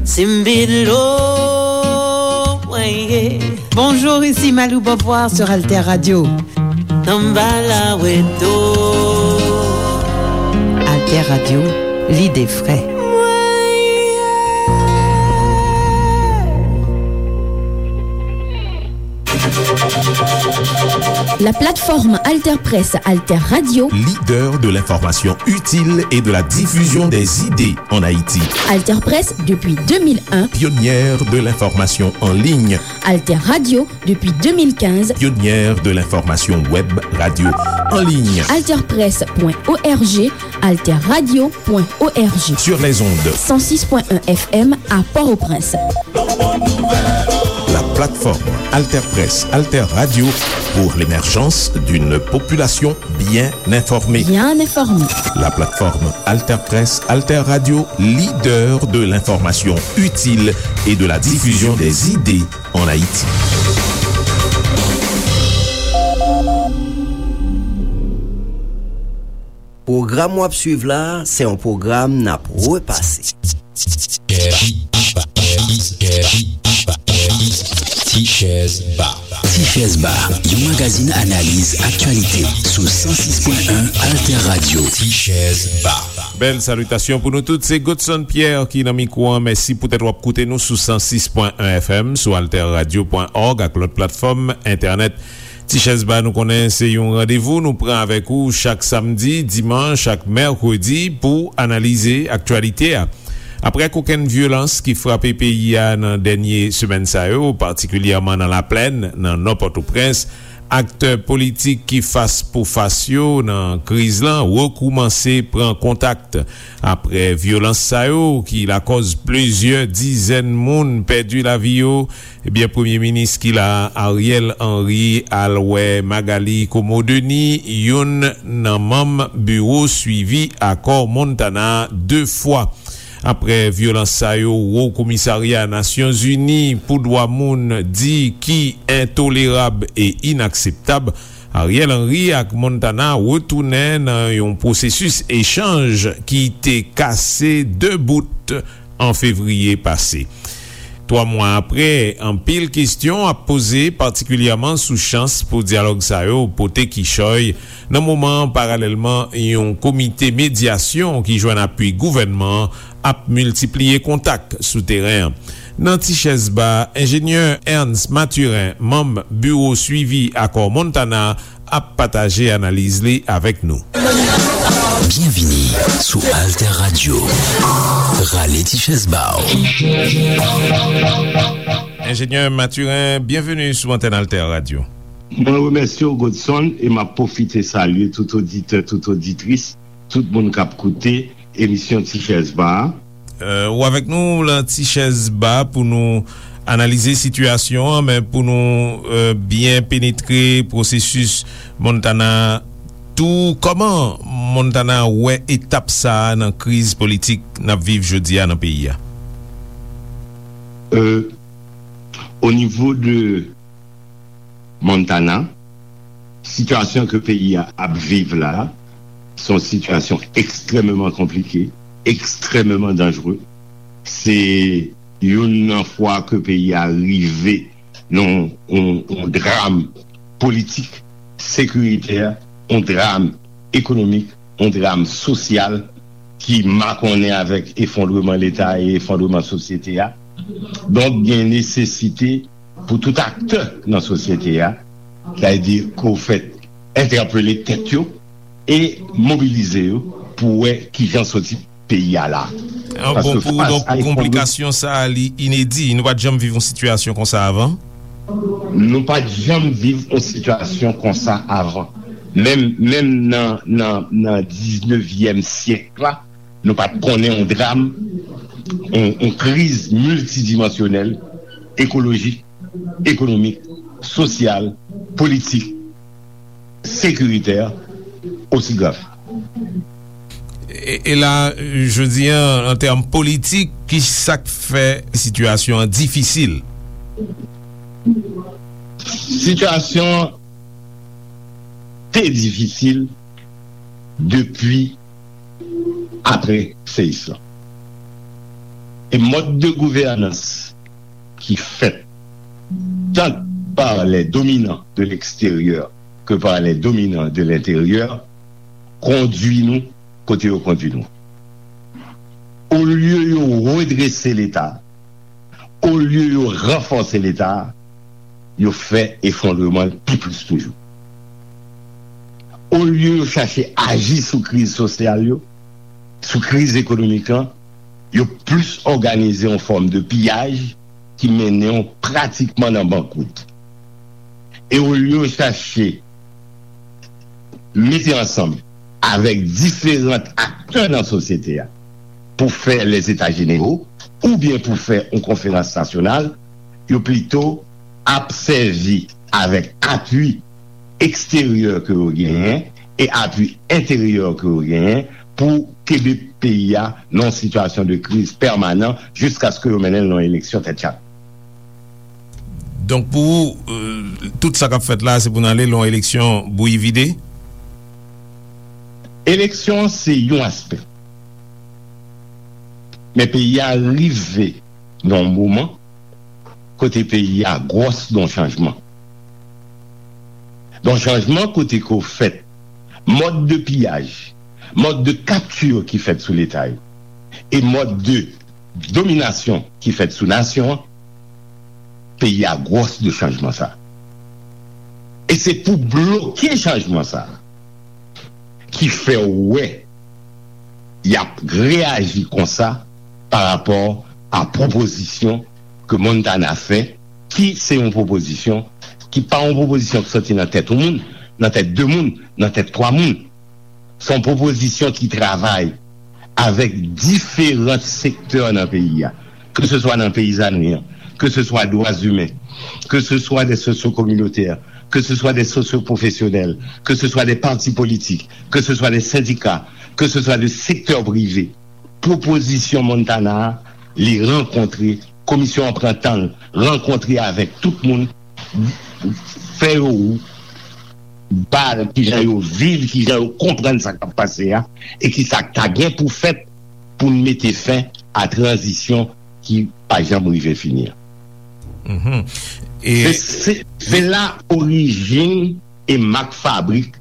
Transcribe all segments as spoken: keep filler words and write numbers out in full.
Simbilo, mwen ye. Bonjour, ici Malou Beauvoir sur Alter Radio. Samba la weto. Alter Radio, lide fre. La plateforme Alter Presse, Alter Radio. Leader de l'information utile et de la diffusion des idées en Haïti. Alter Presse depuis deux mille un. Pionnière de l'information en ligne. Alter Radio depuis deux mille quinze. Pionnière de l'information web radio en ligne. Alter Presse point O R G, Alter Radio point O R G. Sur les ondes. Cent six point un F M à Port-au-Prince. La plateforme Alter Presse, Alter Radio pour l'émergence d'une population bien informée. Bien informée. La plateforme Alter Presse, Alter Radio, leader de l'information utile et de la diffusion des idées en Haïti. Pwogram w ap swiv la a, se yon pwogram n ap repase. Tichèz Ba. Tichèz Ba, yon magazin analiz aktyalite sou san sis pwen en Alter Radio. Tichèz Ba. Bèl salitasyon pou nou tout. Se Godson Pierre ki nan mikwo an. Mèsi poutèt w ap koute nou sou san sis pwen en F M, sou alter radio pwen org ak lòt platfòm entènèt. Tichèz Ba, nou konnen se yon randevou nou pran avèk ou chak samdi, dimanch ak mèkredi pou analize aktyalite a. Aprè kokenn vyolans ki frape peyi a nan dènye semèn sa yo, patikilyèman nan Laplèn, nan Nò Pòtoprens, aktè politik ki fas pou fas yo nan kriz lan rekoumanse pran kontak. Aprè vyolans sa yo ki lakòz plizyè dizèn moun pèdi lavi yo, ebyen, Premye Minis ki la a, Ariel Henry, al wè Magalie Comeau-Denis, youn nan manm biwo swivi akò Montana, de fwa. Aprè vyolans sa yo, Wo Komisarya Nasyonzini pou Dwa Moun di ki entolerab e inakseptab, Ariel Henry ak Montana retounen nan yon pwosesis echanj ki te kase de bout an fevriye pase. Twa mwa aprè, anpil kesyon ap poze, patikilyèman sou chans pou dyalòg sa yo pote kichòy, nan moman, paralèlman, yon komite medyasyon ki jwenn apui gouvènman an ap miltipliye kontak sou teren an. Nan Tichèz Ba, enjenyè Ernst Mathurin, manm Biwo Swivi Akò Montana, ap pataje analiz li avèk nou. Byenvini sou Alter Radio. Rale ti chèz ba w. Enjenyè Mathurin, byenveni sou antèn Alter Radio. Mwen remèsye w, Godson, e m ap pwofite salye tout oditè, tout oditris, tout moun k ap koute emisyon Ti Chèz Ba a. Euh, ou avèk nou lan Ti Chèz Ba pou nou analize sitiyasyon an, men pou nou, euh, byen penetre pwosesis Montana tou, kòman Montana wè etap sa a nan kriz politik n ap viv jodi a nan peyi a? Euh, o nivo de Montana, sitiyasyon ke peyi a ap viv la, se yon sitiyasyon ekstrèmeman konplike, ekstrèmeman danjere. Se youn nan fwa ke peyi a rive nan yon, yon, yon dram politik, sekiritè, yon dram ekonomik, yon dram sosyal ki makonnen avèk efondreman Leta e efondreman sosyete a. Donk, gen nesesite pou tout aktè nan sosyete a, sa vle di ke w fèt entèpele tèt yo e mobilize yo pou wè kijan soti peyi a la. Ah, bon, pou ou, donk, konplikasyon sa a, li inedi. Nou pa t janm viv yon sitiyasyon konsa avan? Nou pa t janm viv yon sitiyasyon konsa avan. Menm, menm nan, nan, nan diznevyèm syèk la, nou pa t konnen yon dram, yon, yon kriz miltidimansyonèl, ekolojik, ekonomik, sosyal, politik, sekiritè osi grav. E, e la, jodi a, an tèm politik, ki sa k fè sitiyasyon an difisil? Sitiyasyon an te difisil depi apre seyis lan. E mòd de gouvènans ki fèt tant par les dominants de l'extérieur que par les dominants de l'intérieur kondui nou kote yo kondui nou. Olye yo redrese Leta, olye yo ranfòse Leta, yo fè efondreman l pi plis toujou. Olye yo chache aji sou kriz sosyal yo, sou kriz ekonomik lan, yo plis òganize yon fòm de piyaj ki mennen w pratikman nan bankwout. E olye yo chache mete ansanm avèk diferan aktè nan sosyete a pou fè les états généraux oubyen pou fè yon konferans nasyonal, yo plito ap sèvi avèk apui eksteryè ke yo genyen e apui enteryè ke yo genyen pou kenbe peyi a nan yon sitiyasyon de kriz pèmanan jiskaske yo mennen l nan yon eleksyon tèt chak. Donk pou ou, euh, tout sa k ap fèt la, se pou n ale lan eleksyon bouyi vide? Eleksyon an se yon aspè. Men peyi a rive nan yon moman kote peyi a gwòs nan chanjman. Nan chanjman kote ke w fèt, mòd de piyaj, mòd de kapti ki fèt sou Leta yo, e mòd de dominasyon ki fèt sou nasyon an, peyi a gwòs de chanjman sa. E se pou bloke chanjman sa ki fè w wè y ap reyaji konsa pa rapò a pwopozisyon ke Montana fè, ki se yon pwopozisyon ki pa yon pwopozisyon ki soti nan tèt yon moun, nan tèt de moun, nan tèt twa moun. Se yon pwopozisyon ki travay avèk diferan sektè nan peyi a, ke se swa nan peyizanri an, ke se swa dwa imen, ke se swa de sosyo-kominotè, ke se swa de sosyo-pwofesyonèl, ke se swa de pati politik, ke se swa de sendika, ke se swa de sektè prive. Pwopozisyon Montana a, li rankontre, komisyon an pran tan l, rankontre avèk tout moun, fè yo ba kijan yo viv, kijan yo konprann sa k ap pase a, e kisa k ta gen pou fèt pou n mete fen a tranzisyon ki pa janm rive fini an. Mhm. E Se, se, se la orijin e mak fabrik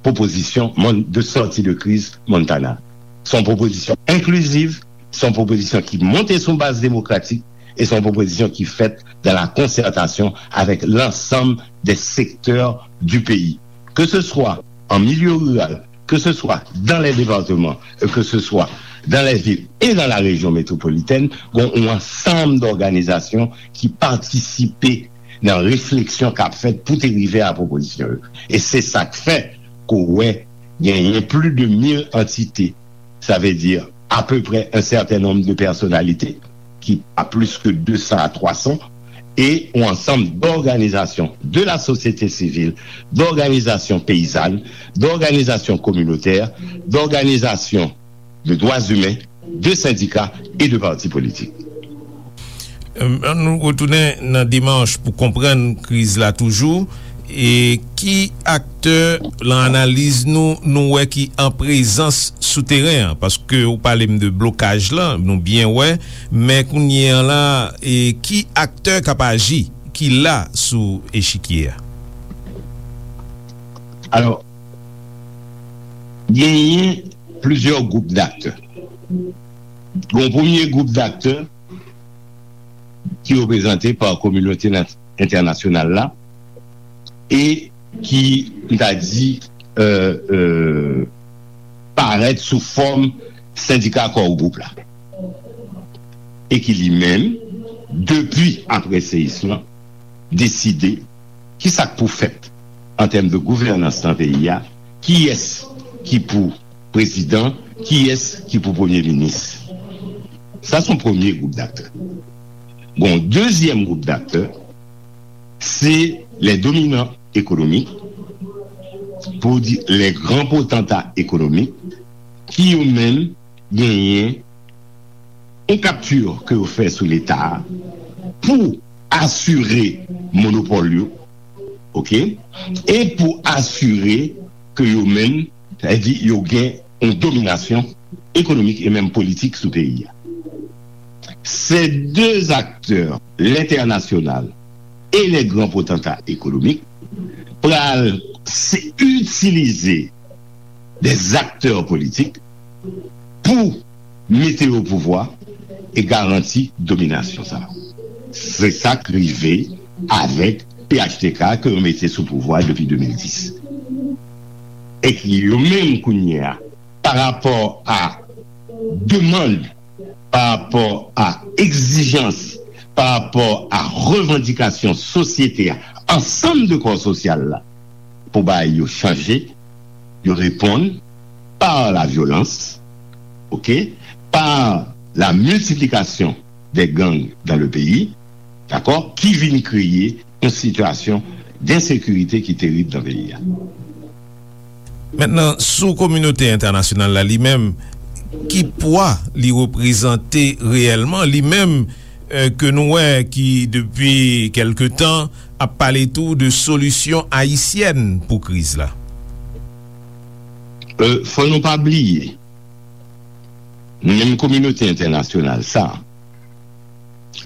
pwopozisyon Mon- de sòti de kriz Montana. Se yon pwopozisyon enkliziv, se yon pwopozisyon ki monte sou baz demokratik, e se yon pwopozisyon ki fèt dans la concertation avec l'ensemble des secteurs du pays. Que ce soit en milieu rural, que ce soit dans les départements, que ce soit dans les villes et dans la région métropolitaine, gen yon ansanm dòganizasyon ki patisipe nan refleksyon k ap fèt pou te rive a pwopozisyon yo. E se sa k fè ke w wè genyen plis de mil antite, sa vle di apeprè un certain nombre de personnalités, ki pa plis ke de san a twa san, e yon ansanm dòganizasyon de la sosyete sivil, dòganizasyon peyizàn, dòganizasyon kominotè, dòganizasyon de dwa imen, de sendika e de pati politik. Ann nou retounen nan demach pou konprann kriz la toujou. E ki aktè lan analiz nou nou wè ki an prezans sou teren an? Paske ou pale m de blokaj lan, nou byen wè, men kounye an la, e ki aktè k ap aji, ki la sou echikye a? Alò, genyen plizyè gwoup daktè. Gen yon premye gwoup daktè ki reprezante pa kominote entènasyonal la e ki, m ta di, euh, euh, parèt sou fòm sendika Core Group la. E ki li menm, depi apre seyis lan, deside kisa k pou fèt an tèm de gouvènans nan peyi a, kiyès ki pou prezidan, kiyès ki pou premye minis. Sa se yon premye gwoup daktè. Bon, dezyèm gwoup daktè, se les dominants économiques, pou di les grands potentats économiques, ki yo menm genyen yon kapti ke yo fè sou Leta a pou asire monopòl yo, oke, e pou asire ke yo menm, sa vle di yo gen yon dominasyon économique et même politique sou peyi a. Ces deux acteurs, l'international et les grands potentats économiques, pral se itilize des acteurs politiques pou mete yo o pouvwa e garanti dominasyon sa. Se sa k rive avèk P H T K ke yo mete sou pouvwa depi de mil dis. E ki yo menm kounye a, pa rapò a demann, pa rapò a egzijans, pa rapò a revandikasyon sosyete a, ansanm de kò sosyal la, pou bagay yo chanje, yo reponn par la violence, ok, par la multiplication des gangs dans le pays, dakò, ki vin kreye yon sitiyasyon densekirite ki terib nan peyi a. Mentnan, sou kominote entènasyonal la li menm, ki pwa li reprezante reyèlman, li menm, ke nou wè ki depi kèlke tan ap pale tou de solisyon ayisyèn pou kriz la? Fò nou pa bliye, menm kominote entènasyonal sa,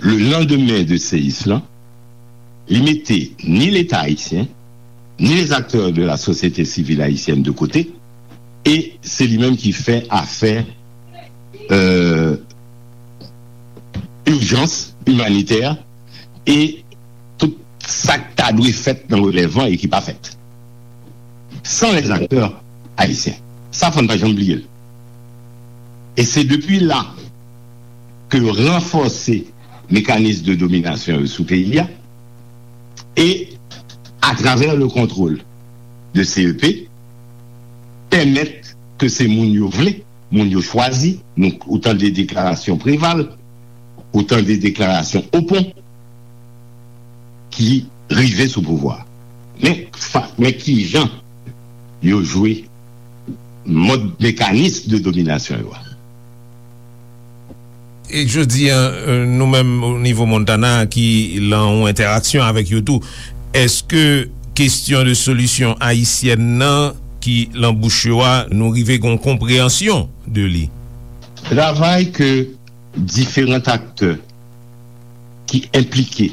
le lendemain de seyis lan, li mete ni Leta ayisyen, ni les acteurs de la société civile haïtienne de côté, e se li menm ki fè afè euh, ijans imanitè e tout sa k ta dwe fèt nan relèv lan e ki pa fèt. San les acteurs haïtiens. Sa fò n pa janm bliye l. E se depi la ke yo ranfòse mekanis de dominasyon yo sou peyi a e atravè le contrôle de C E P pèmèt ke se moun yo vle, moun yo chwazi, nou ou tande deklarasyon Preval, ou tande deklarasyon Opon ki rive sou pouvwa. Men, men ki jan yo jwe mòd mekanis de dominasyon yo a. E jodi a, nou menm o nivo Montana ki lan yon entèraksyon avèk yo tou, èske kesyon de solisyon ayisyèn nan ki lan bouch yo a, nou rive gen yon konpreyansyon de li? Travay ke diferan aktè ki enplike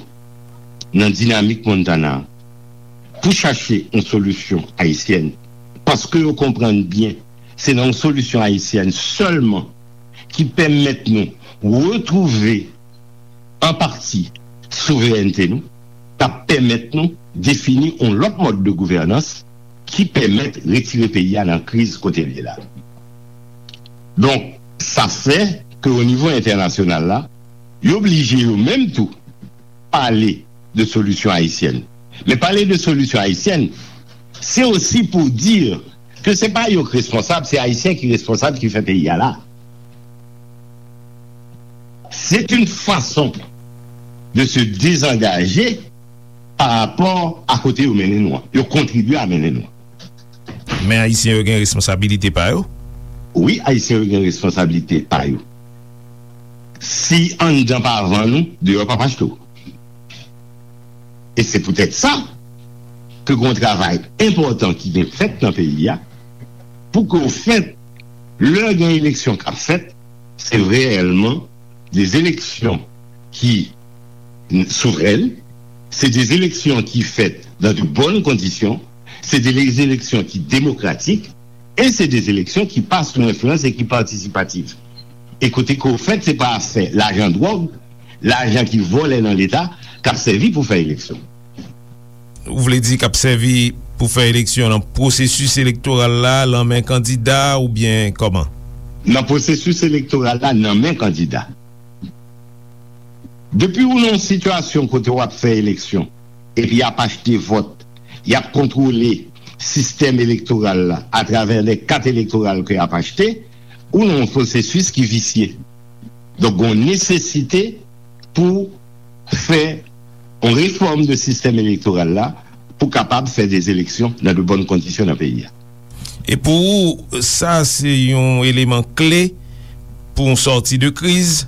nan dinamik Montana pou chache yon solisyon ayisyèn, paske yo konprann byen se nan yon solisyon ayisyèn sèlman ki pèmèt nou retwouve an pati souverènte nou, k ap pèmèt nou defini yon lòt mòd de gouvènans ki pèmèt retire peyi a nan kriz kote l ye la. Donk, sa fè ke o nivo entènasyonal la, yo blije yo menm tou pale de solisyon ayisyèn. Men pale de solisyon ayisyèn, se osi pou di ke se pa yo k responsab, se Ayisyen ki responsab ki fè peyi a la. C'est une façon de se désengager par rapport à kote yo mennen nou an. Yo kontribye a mennen nou an. Men Ayisyen yo gen responsabilite pa yo? Wi, Ayisyen yo gen responsabilite pa yo. Si anndan pa vann ou, deyò p ap achte w. E se poutèt sa ke gen yon travay enpòtan ki gen fèt nan peyi a pou ke ofèt, lè gen eleksyon k ap fèt, se reyèlman des élections qui souveraines, c'est des élections qui faites dans de bonnes conditions, c'est des élections qui démocratiques, et c'est des élections qui passent sous influence et qui participatives. E kote ke ofèt, se pa afè lajan dwòg, lajan ki vòlè nan Leta, k ap sèvi pou fè eleksyon. Ou vle di k ap sèvi pou fè eleksyon nan pwosesis elektoral la, lan men kandida oubyen kòman? Nan pwosesis elektoral la, nan men kandida. Depi ou nan yon sitiyasyon kote w ap fè eleksyon, epi y ap achte vòt, y ap kontwole sistèm elektoral la atravè lè kat elektoral ke y ap achte, ou nan yon pwosesis ki visye. Donk, gen yon nesesite pou fè yon refòm de sistèm elektoral la pou kapab fè de eleksyon nan de bòn kondisyon nan peyi a. E pou ou, sa se yon eleman kle pou yon sòti de kriz?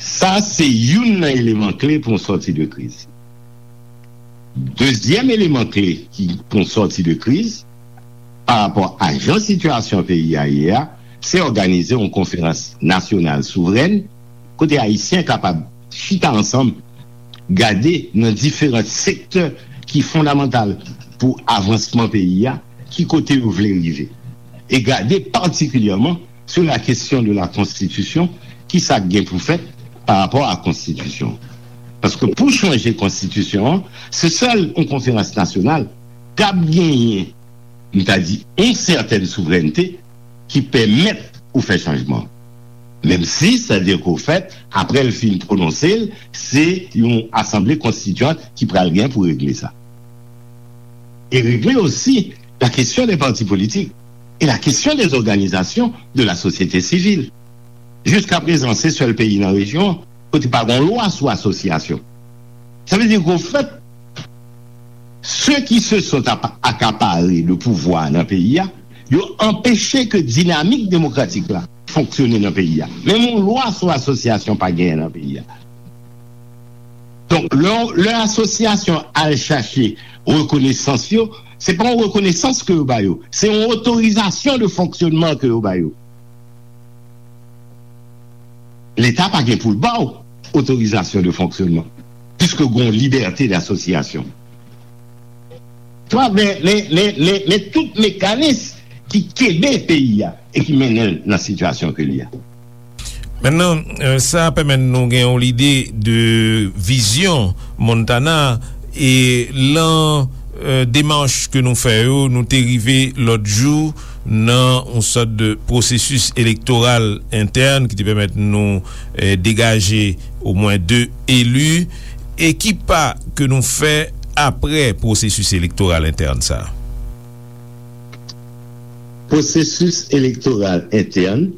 Sa se youn nan eleman kle pou yon sòti de kriz. Dezyèm eleman kle ki pou yon sòti de kriz, pa rapò a jan sitiyasyon peyi a ye a, se òganize yon konferans nasyonal souvrèn, kote Ayisyen kapab chita ansanm, gade nan diferan sektè ki fondamantal pou avansman peyi a, ki kote yo vle rive. E gade patikilyèman sou la kesyon de la konstitisyon, ki sa k gen pou fèt pa rapò a konstitisyon. Paske pou chanje konstitisyon an, se sèl yon konferans nasyonal k ap genyen, m ta di, yon sètèn souvrènte ki pèmèt ou fè chanjman. Menm si, sa di ke w fèt, apre l fin pwononse l, se yon asanble konstitiyant ki pral gen pou regle sa. E regle osi la kesyon de pati politik e la kesyon de òganizasyon de la sosyete sivil. Jiska prezan, se sèl peyi nan rejyon an kote pa gen lwa sou asosyasyon. Sa vle di ke, ofèt, ceux qui se sont apa- accaparés le pouvoir nan peyi a, yo anpeche ke dinamik demokratik la fonksyone nan peyi a. Menm yon lwa sou asosyasyon pa genyen nan peyi a. Donk, lè, lè asosyasyon al chache rekonesans yo, se pa yon rekonesans ke yo ba yo, se yon otorizasyon de fonksyonman ke yo ba yo. Leta pa gen pou l ba w otorizasyon de fonksyonman, piske gen yon libète d'association. Travè, men, men, men, men tout mekanis ki kenbe peyi a e ki mennen l nan sitiyasyon ke li a. Mentnan, euh, sa pèmèt nou gen yon lide de vizyon Montana e lan euh, demach ke nou fè yo, nou te rive lòt jou nan yon sòt de pwosesis elektoral entèn ki te pèmèt nou euh, degaje omwen de eli. E ki pa ke nou fè apre pwosesis elektoral entèn sa a? Pwosesis elektoral entèn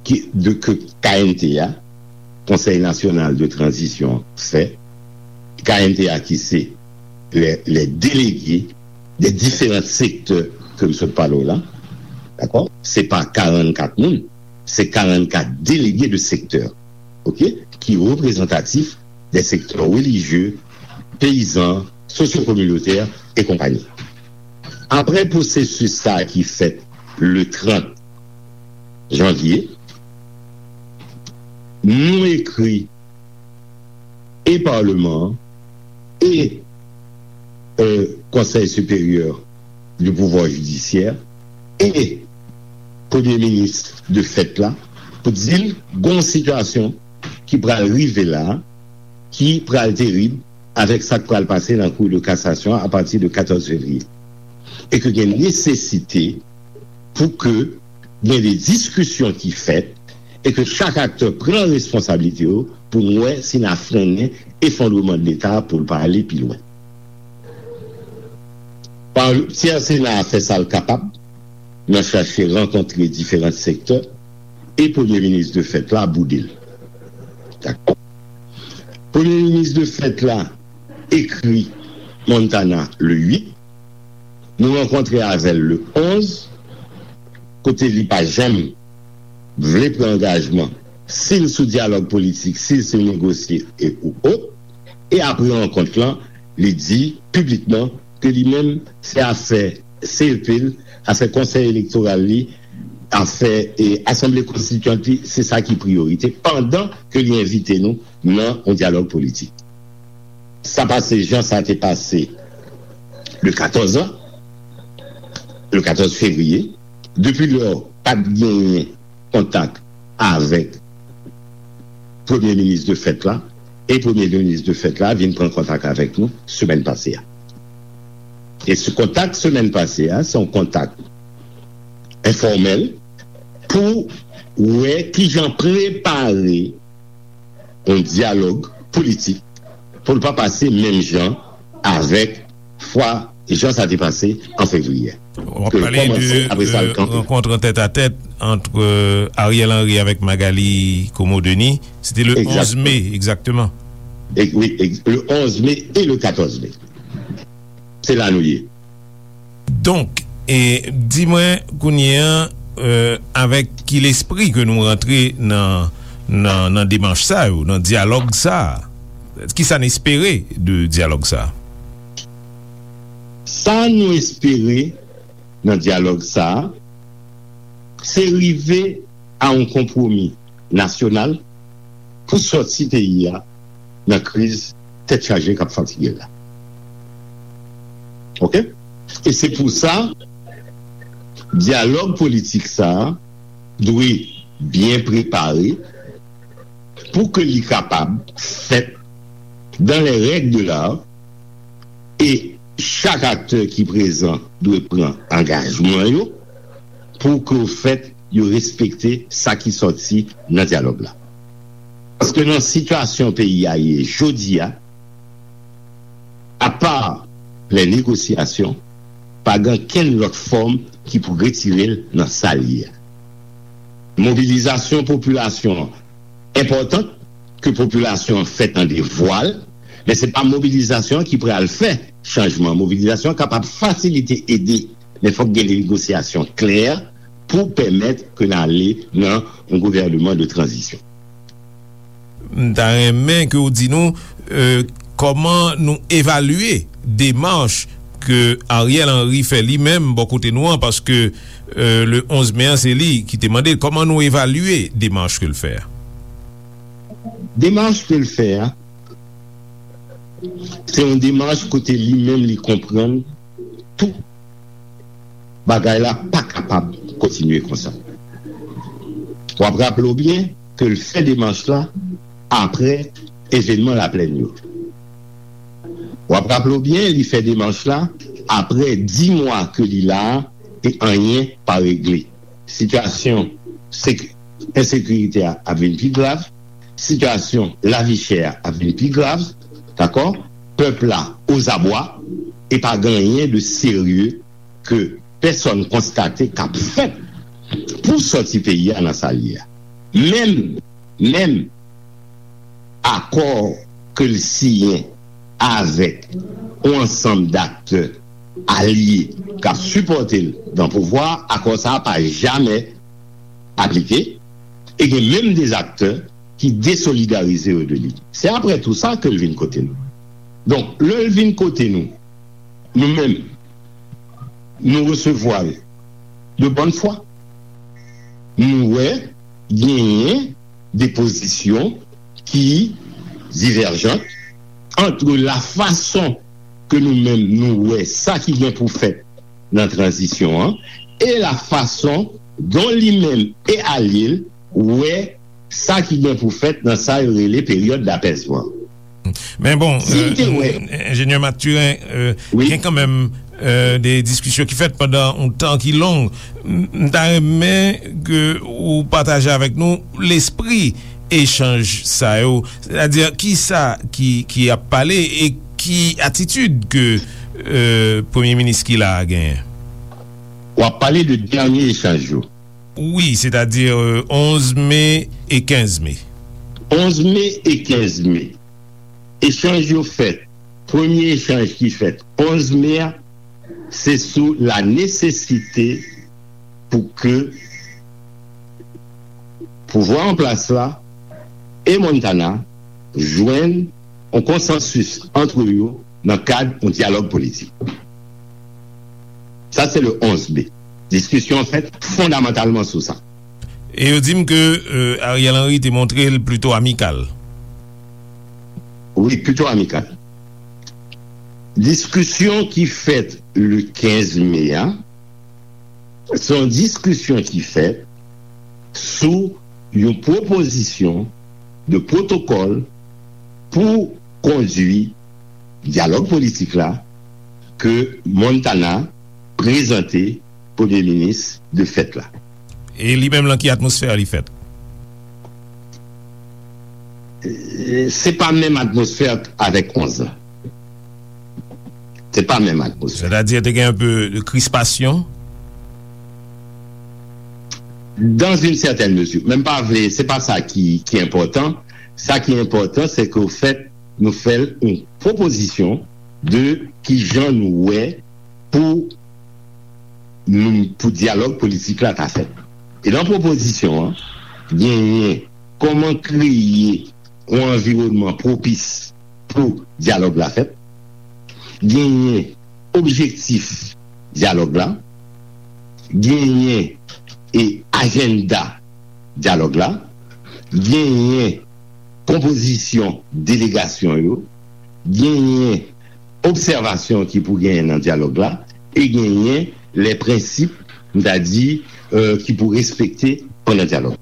ki, de, ke K N T A, Konsèy Nasyonal de Tranzisyon, fè, K N T A ki se les, les délégués des différents secteurs ke m sot pale w la, dakò? Se pa karannkat moun, se karannkat délégués de secteur, oke? Ki reprezantatif des secteurs religieux, peyizan, sosyo-kominotè e konpayi. Apre pwosesis sa a ki fèt le trant janvye, nou ekri e Parlement an e euh, Conseil supérieur du pouvoir judiciaire e Premye Minis de fèt la pou di l gon sitiyasyon ki pral rive la, ki pral terib avèk sa k pral pase nan Cour de cassation a pati de katòz fevriye. E ke gen nesesite pou ke gen de diskisyon ki fèt e ke chak aktè pran responsablite yo pou n wè si n a frennen efondreman de Leta pou l pa ale pi lwen. Ti Sena a fè sa l kapab nan chache rankontre diferan sektè e Premye Minis de fèt la boude l. Dakò? Premye Minis de fèt la ekri Montana le uit. Nou rankontre avè l le onz, kote li pa janm vle pran angajman, si l sou dyalòg politik, si l sou negosye e ou ot. E apre rankont lan, li di piblikman ke li menm, se afè C E P l, afè Konsèy Elektoral li, afè e Asanble Konstityant li, se sa ki priyorite, pandan ke li envite nou nan yon dyalòg politik. Sa pase jan sa te pase le katòz an, le katòz fevriye. Depi lò, pa t genyen kontak avèk Premye Minis de fèt la, e Premye Minis de fèt la vin pran kontak avèk nou semèn pase a. E se kontak semèn pase a, se yon kontak enfòmèl pou wè kijan prepare yon dyalòg politik pou l pa pase menm jan avèk fwa jan sa te pase an fevriye. W ap pale de rankont an tèt a tèt ant Ariel Henry avèk Magalie Comeau-Denis. Se te le onz me, egzakteman. Wi, le onz me e le katòz me. Se la nou ye. Donk, e, di mwen kounye a, e, avèk ki lespri ke nou rantre nan, nan, nan demach sa yo, nan dyalòg sa a? Kisa n espere de dyalòg sa a? Sa nou espere nan dyalòg sa a, se rive a yon konpwomi nasyonal pou sòti peyi a nan kriz tèt chaje k ap fatige l la. Oke? E se pou sa, dyalòg politik sa a dwe byen prepare pou ke li kapab fèt dans les règles de l'art, e chak aktè ki prezan dwe pran angajman yo pou ke, ofèt, yo respekte sa ki sòti nan dyalòg la. Paske nan sitiyasyon peyi a ye jodi a, apa lè negosyasyon, pa gen kenn lòt fòm ki pou retire l nan sa l ye a. Mobilizasyon popilasyon an enpòtan, ke popilasyon an fè tande vwa l, men se pa mobilizasyon an ki pral fè chanjman. Mobilizasyon an kapab fasilite, ede, men fòk gen negosyasyon klè pou pèmèt ke n ale nan yon gouvèneman de tranzisyon. M ta renmen ke w di nou, euh, kòman nou evalye demach ke Ariel Henry fè li menm bò kote nou an, paske, euh, le onz me an, se li ki te mande l. Kòman nou evalye demach ke l fè a? Demach ke l fè a, se yon demach kote li menm li konprann tou bagay la pa kapab kontinye konsa. W ap raple w byen ke l fè demach la apre evènman Laplèn yo. W ap raple w byen, li fè demach la apre dis mwa ke li la a e anyen pa regle. Sitiyasyon ensekirite a ap vin pi grav, sitiyasyon lavi chè a ap vin pi grav, dakò? Pèp la ozabwa, e pa gen anyen de serye ke pèsòn konstate k ap fèt pou sòti peyi a nan sa l ye a. Menm, menm akò ke l siyen avèk yon ansanm daktè alye k ap sipòte l nan pouvwa a, akò sa a pa jamè aplike, e gen menm de aktè ki desolidarize yo de li. Se apre tou sa ke l vin kote nou. Donk, lè l vin kote nou, nou menm, nou resevwa l de bòn fwa. Nou wè genyen de pozisyon ki divèjan ant la fason ke nou menm nou wè sa ki gen pou fèt nan tranzisyon an e la fason don li menm e alye l wè sa ki gen pou fèt nan sa yo rele peryòd dapèzman. Men bon, enjenyè Mathurin, gen kanmenm de diskisyon ki fèt pandan yon tan ki long. M ta renmen ke ou pataje avèk nou lespri echanj sa yo, sètadi kisa ki ap pale e ki atitid ke premye minis ki la a genyen. W ap pale de dènye echanj yo. Wi, sètadi onz me e kenz me. Onz me e kenz me. Echanj yo fèt. Premye echanj ki fèt onz me a, se sou la nesesite pou ke pouvwa an plas la e Montana jwenn yon konsansis ant yo nan kad yon dyalòg politik. Sa se le onz me. Diskisyon an fèt fondamantalman sou sa. E yo di m ke Ariel Henry te montre l plito amikal. Wi, plito amikal. Diskisyon ki fèt le kenz me a, se yon diskisyon ki fèt sou yon pwopozisyon de pwotokòl pou kondui dyalòg politik la ke Montana prezante premye minis de fèt la. E li menm lan ki atmosfè li fèt? Se pa menm atmosfè avèk onz la. Se pa menm atmosfè. Sètadi te gen yon pe de krispasyon? Dans une certaine mesure. Men m pa vle, se pa sa ki, ki enpòtan. Sa ki enpòtan, se ke ofèt, nou fè l yon pwopozisyon de kijan nou wè pou nou, pou dyalòg politik la ta fèt. E nan pwopozisyon an, genyen kòman kreye yon anviwònman pwopis pou dyalòg la fèt, genyen objektif dyalòg la, genyen e ajanda dyalòg la, genyen konpozisyon delegasyon yo, genyen obsèvasyon ki pou genyen nan dyalòg la, e genyen lè prensip, m ta di, euh, ki pou respekte pandan dyalòg.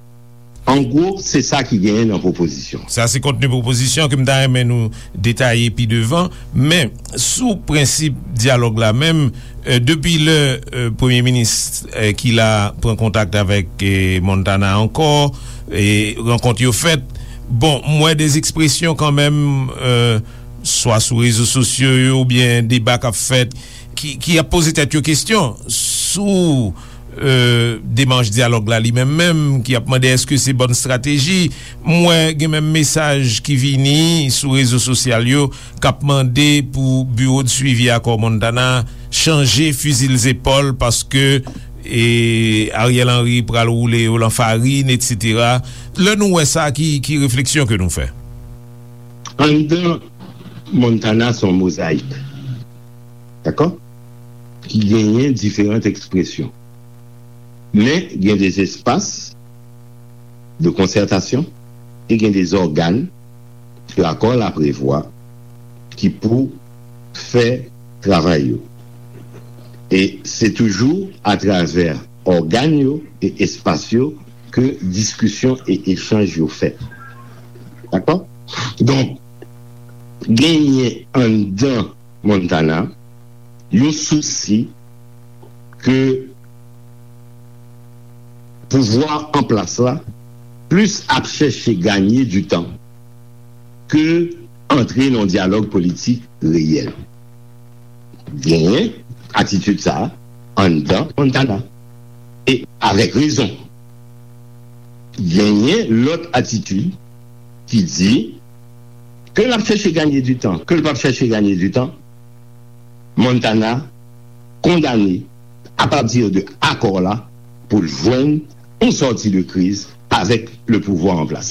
An gwo, se sa ki genyen nan pwopozisyon. Sa se kontni pwopozisyon ke m ta renmen nou detaye pi devan, men sou prensip dyalòg la menm, euh, depi lè, euh, premye minis, euh, ki la pran kontak avèk, euh, Montana ankò, e rankont yo fèt, bon, m wè de ekspresyon kanmenm, euh, swa sou rezo sosyo yo oubyen deba k ap fèt, ki, ki ap poze tèt yo kesyon sou, euh, demach dyalòg la li menm menm, ki ap mande èske se bòn estrateji. M wè gen menm mesaj ki vini sou rezo sosyal yo k ap mande pou biwo de swivi akò Montana chanje fizi l zepòl paske, e, Ariel Henry pral woule yo lan farin, etsetera. Lè nou wè sa, ki, ki refleksyon ke nou fè? Anndan Montana se yon mozayik, dakò? Ki genyen diferan ekspresyon. Men gen de espas de konsètasyon e gen de ògàn ke akò la prevwa ki pou fè travay yo. E se toujou atravè ògàn yo e espas yo ke diskisyon e echanj yo fèt. Dakò? Donk, genyen anndan Montana yon sousi ke pouvwa an plas la plis ap chèche ganye di tan ke antre nan dyalòg politik reyèl. Genyen atitid sa a anndan Montana. E avèk rezon. Genyen lòt atitid ki di ke l ap chèche ganye di tan, ke l p ap chèche ganye di tan, Montana kondane apati de akò la pou l jwenn yon sòti de kriz avèk le pouvwa an plas.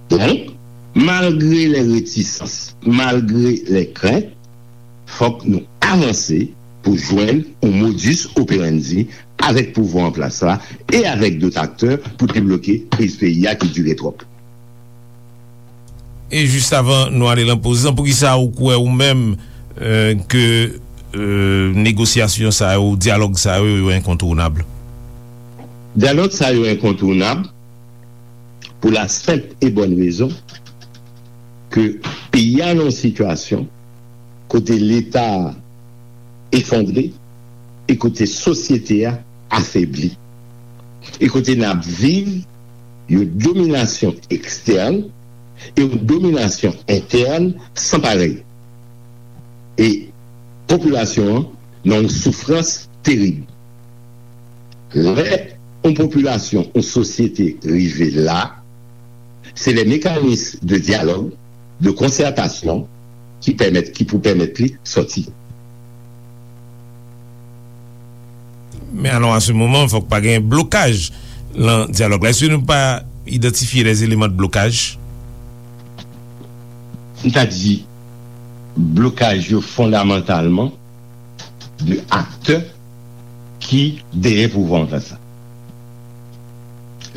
Donk, malgre lè retisans, malgre lè krent, fòk nou avanse pou jwenn yon modus operandi avèk pouvwa an plas la e avèk dòt aktè pou debloke kriz peyi a ki dire twòp. E jis avan nou ale lan poz lan, poukisa ou kwè ou menm, euh, ke, euh, negosyasyon sa yo, dyalòg sa yo, yo enkontounab? Dyalòg sa yo enkontounab pou la senp e bòn rezon ke peyi a nan yon sitiyasyon kote Leta a efondre e kote sosyete a afebli. E kote n ap viv yon dominasyon ekstèn e yon dominasyon entèn san parèy. E popilasyon an nan yon soufrans terib. Lè yon popilasyon, yon sosyete rive la, se lè mekanis de dyalòg, de konsètasyon ki pèmèt, ki pou pèmèt li sòti. Men alò, a se moman, fòk pa gen blokaj lan dyalòg la. Èske nou pa idantifye lè eleman de blokaj? M ta di, blokaj yo fondamantalman de aktè ki dèyè pouvwa an plas la.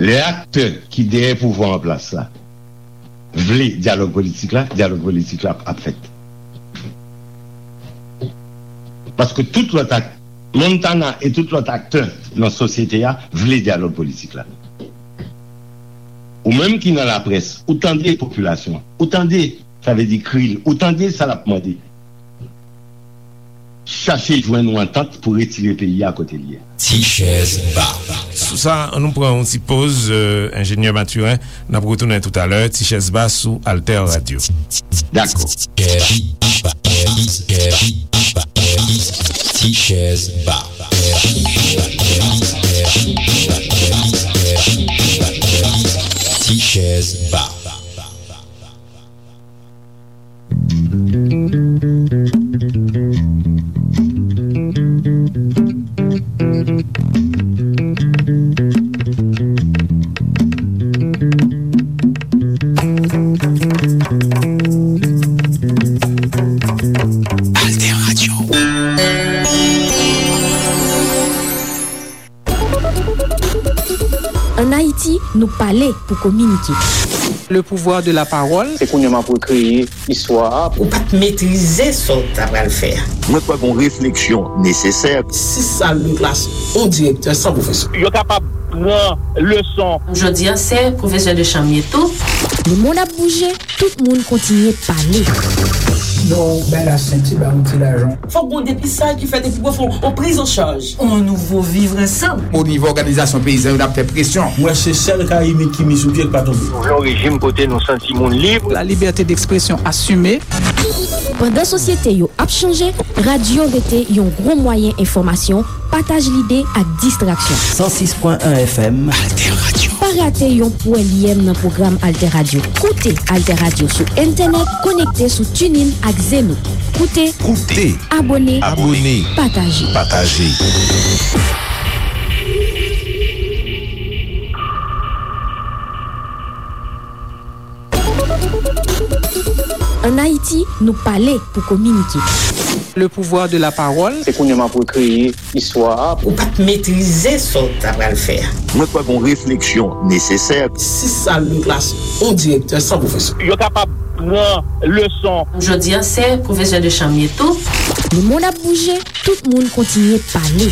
Lè aktè ki dèyè pouvwa an plas la vle dyalòg politik la, dyalòg politik la ap fèt. Paske tout lòt ak-, Montana e tout lòt aktè nan sosyete a vle dyalòg politik la. Ou menm ki nan laprès, ou tande popilasyon an, ou tande, sa vle di kri l, ou tande sa l ap mande. Chache jwenn yon antant pou retire peyi a kote l ye. Ti chèz ba. Sou sa, an nou pran yon ti poz, euh, enjenyè Mathurin, n ap retounen toutalè, ti chèz ba sou Alter Radio. Dakò. Ti chèz ba. Ti chèz ba. Alter Radio. Ann Ayiti, nou pale pou kominike. Le pouvoir de la parole. Se kounye a m ap rekreye istwa a. Ou pa t metrize sa w ta pral fè a. Mwen kwè gon refleksyon nesesè. Sis sal de klas, yon direktè san pwofesè. Yo kapab pran leson. Jodi a, se pwofesè de chanm ye tou. Lemonn ap bouje, tout moun kontinye pale. Non, bay la senti, ba yon ti lajan. Fòk gon depistaj ki fèt epi pou fè yon priz an chaj. On nouvo vivre ensemble. O nivo òganizasyon peyizan yo, n ap fè presyon. Mwen se sèl ka imit ki mi sou pye k pa tonbe. Nou vle yon rejim kote nou santi moun lib. La liberté d'expression assumée. Pandan sosyete yo ap chanje, radyo rete yon gwo mwayen enfòmasyon, pataj lide ak distraksyon. San sis pwen en F M. Alter Radio. Pa rate yon pwèlyèm nan pwogram Alter Radio. Koute Alter Radio sou entènèt, konekte sou TuneIn ak Zeno. Koute, koute, abòne, abòne, pataje. Pataje. Ann Ayiti, nou pale pou kominike. Le pouvoir de la parole. Se kounye a m ap rekreye istwa a. Ou pa t metrize sa w ta pral fè a. Mwen kwè gon refleksyon nesesè. Sis sal de klas, yon direktè san pwofesè. Yo kapab pran leson. Jodi a, se pwofesè de chanm ye tou. Lemonn ap bouje, tout moun kontinye pale.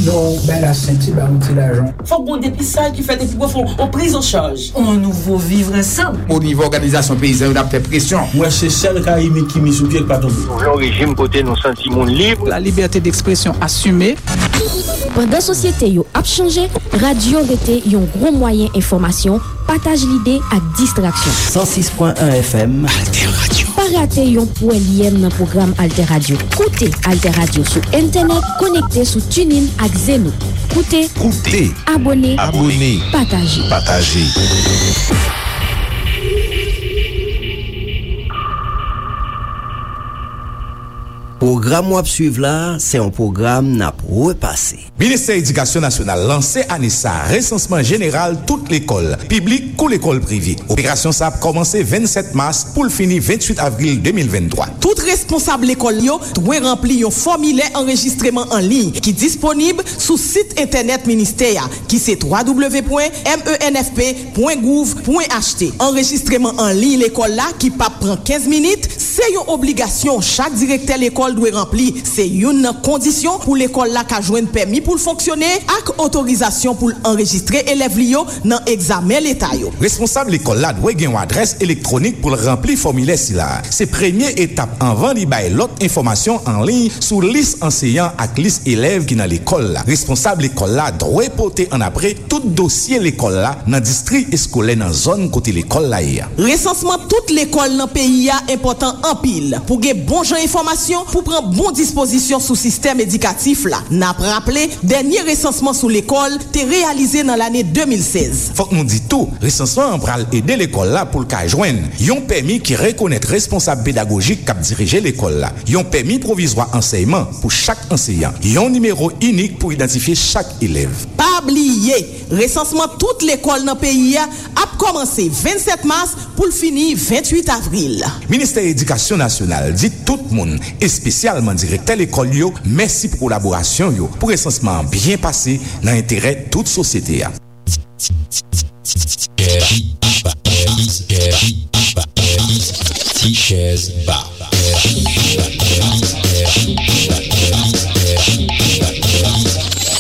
Non, bay la senti, ba yon ti lajan. Fòk gon depistaj ki fèt epi pou fè yon priz an chaj. On nouvo vivre ensemble. O nivo òganizasyon peyizan yo, n ap fè presyon. Mwen se sèl ka imit ki mi sou pye k pa tonbe. Nou vle yon rejim kote nou santi moun lib. La liberté d'expression assumée. Pandan sosyete yo ap chanje, radyo rete yon gwo mwayen enfòmasyon, pataj lide ak distraksyon. San sis pwen en F M. Alter Radio. Pa rate yon pwèlyèm nan pwogram Alter Radio. Koute Alter Radio sou entènèt, konekte sou TuneIn ak Zeno. Koute, koute, abòne, abòne, pataje. Pataje. Pwogram w ap swiv la, se yon pwogram n ap repase. Ministè Edikasyon Nasyonal lanse ane sa a resansman jeneral tout lekòl, piblik kou lekòl prive. Operasyon sa a ap kòmanse vennsèt mas pou l fini venntwit avril de mil venntwa. Tout responsab lekòl yo dwe ranpli yon fòmilè anrejistreman an liy ki disponib sou sit entènèt ministè a, ki se twa w w w pwen m e n f p pwen gouv pwen h t. Anrejistreman an liy lekòl la, ki p ap pran kenz minit, se yon obligasyon. Chak direktè lekòl dwe ranpli. Se youn nan kondisyon pou lekòl la ka jwenn pèmi pou l fonksyone ak otorizasyon pou l anrejistre elèv li yo nan egzamen leta yo. Responsab lekòl la dwe gen yon adrès elektwonik pou l ranpli fòmilè sila a. Se premye etap anvan li bay lòt enfòmasyon an liy sou lis anseyan ak lis elèv ki nan lekòl la. Responsab lekòl la dwe pote annapre tout dosye lekòl la nan distri eskolè nan zòn kote lekòl la ye a. Resansman tout lekòl nan peyi a enpòtan anpil pou gen bon jan enfòmasyon pou pran bon dispozisyon sou sistèm edikatif la. N ap raple, dènye resansman sou lekòl te reyalize nan lane de mil sèz. Fòk nou di tou, resansman an pral ede lekòl la pou l ka jwenn yon pèmi ki rekonèt responsab pedagojik k ap dirije lekòl la, yon pèmi pwovizwa ansèyman pou chak anseyan, yon nimewo inik pou idantifye chak elèv. Pa bliye, resansman tout lekòl nan peyi a ap kòmanse vennsèt mas pou l fini venntwit avril. Ministè Edikasyon Nasyonal di tout moun, espesyalman direktè lekòl yo, mèsi pou kolaborasyon yo pou resansman an byen pase nan enterè tout sosyete a. Ti chèz ba.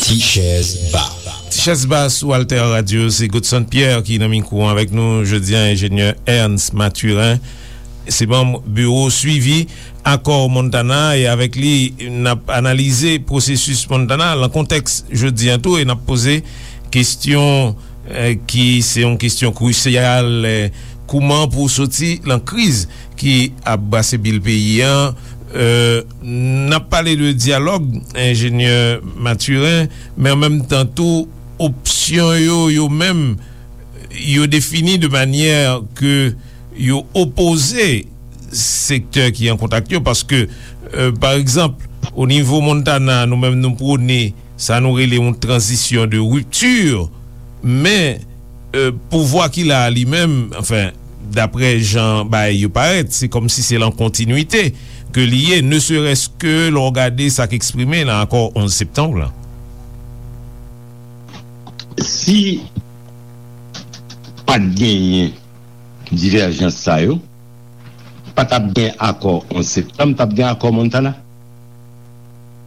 Ti chèz ba. Ti chèz ba sou Alter Radio, se Godson Pierre ki nan mikwo an avèk nou jodi a, enjenyè Ernst Mathurin. Se manm biwo swivi akò Montana, e avèk li, n ap analize pwosesis Montana lan kontèks jodi a tou, e n ap poze kesyon, eh, ki se yon kesyon krisyal, eh, kouman pou soti lan kriz ki ap brase bil peyi an. Eh, n ap pale de dyalòg, enjenyè Mathurin, men an menm tan tou, opsyon yo, yo menm, yo defini de manyè ke yo opoze sektè ki an kontak yo, paske, eh, pa egzanp, o nivo Montana, nou menm nou pwone sa nou rele yon tranzisyon de ripti, men, eh, pouvwa ki la a li menm, anfen, daprè jan bagay yo parèt, se kòmsi se lan kontinwite ke li ye, ne serait-ce que lè w gade sa k eksprime lan akò onz septanm lan. Si pa t genyen divèjans sa yo, pa t ap gen akò onz septanm, t ap gen akò Montana.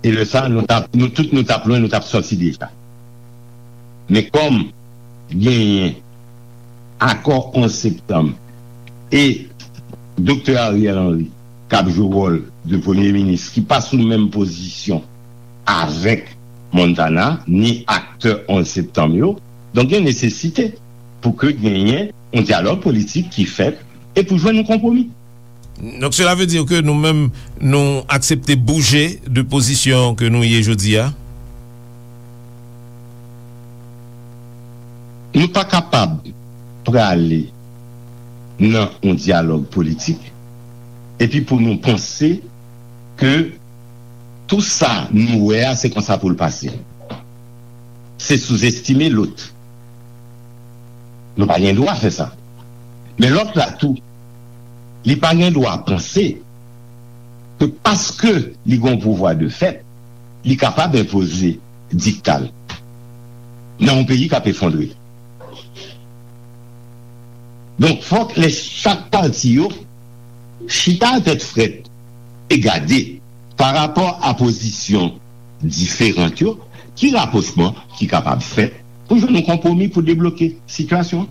E lè sa, nou t ap, nou tout nou t ap lwen, nou t ap sòti deja. Men kòm genyen akò onz septanm e Doktè Ariel Henry k ap jwe wòl de premye minis ki pa sou menm pozisyon avèk Montana, ni aktè onz septanm yo, donk gen nesesite pou ke genyen yon dyalòg politik ki fèt e pou jwenn yon konpwomi. Donk, cela veut dire que nou menm, nou aksepte bouje de pozisyon ke nou ye jodi a? Nou pa kapab prale nan yon dyalòg politik epi pou nou panse ke tou sa nou wè a, se konsa pou l pase. Se souzestime lòt. Nou pa gen dwa fè sa. Men lòt la tou, li pa gen dwa panse ke paske li gen yon pouvwa de fèt, li kapab enpoze dikta l nan yon peyi k ap efondre. Donk, fòk lè chak pati yo chita a tèt frèt e gade, pa rapò a pozisyon diferan yo, ki rapwochman ki kapab fèt pou jwenn yon konpwomi pou debloke sitiyasyon an.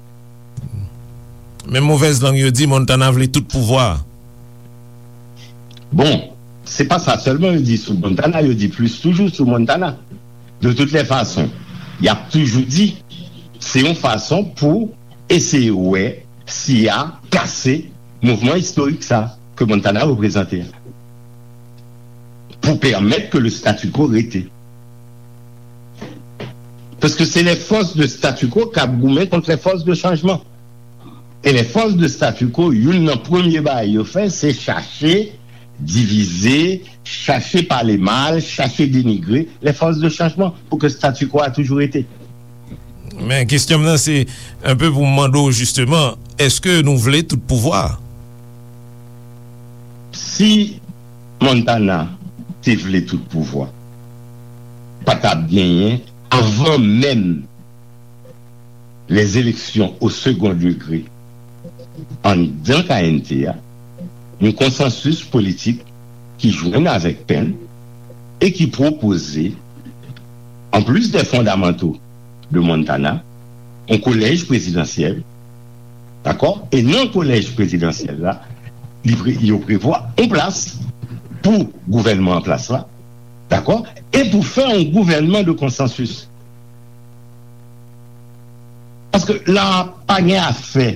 Men movèz lang yo di Montana vle tout pouvwa a. Bon, se pa sa sèlman yo di sou Montana, yo di plis toujou sou Montana. De toutes les façons, y ap toujou di, se yon fason pou eseye wè si y a kase mouvman istorik sa ke Montana reprezante a, pou pèmèt ke le statu quo rete. Paske se lè fòs de statu quo k ap goumen kont lè fòs de chanjman. E lè fòs de statu quo, youn nan premye bagay yo fè, se chache divize, chache pale mal, chache denigre lè fòs de chanjman pou ke statu quo a toujou rete. Men kesyon m nan se, enpe pou m mande w jisteman, èske nou vle tout pouvwa a? Si Montana te vle tout pouvwa, pa t ap genyen, avan menm les élections au second degré anndan K N T a, yon konsansis politik ki jwenn avèk Penn e ki pwopoze, en plus des fondamentaux de Montana, yon kolèj prezidansyèl, dakò? E nan kolèj prezidansyèl la, li pre-, yo prevwa yon plas pou gouvènman an plas la, dakò? E pou fè yon gouvènman de konsansis. Paske la pa gen afè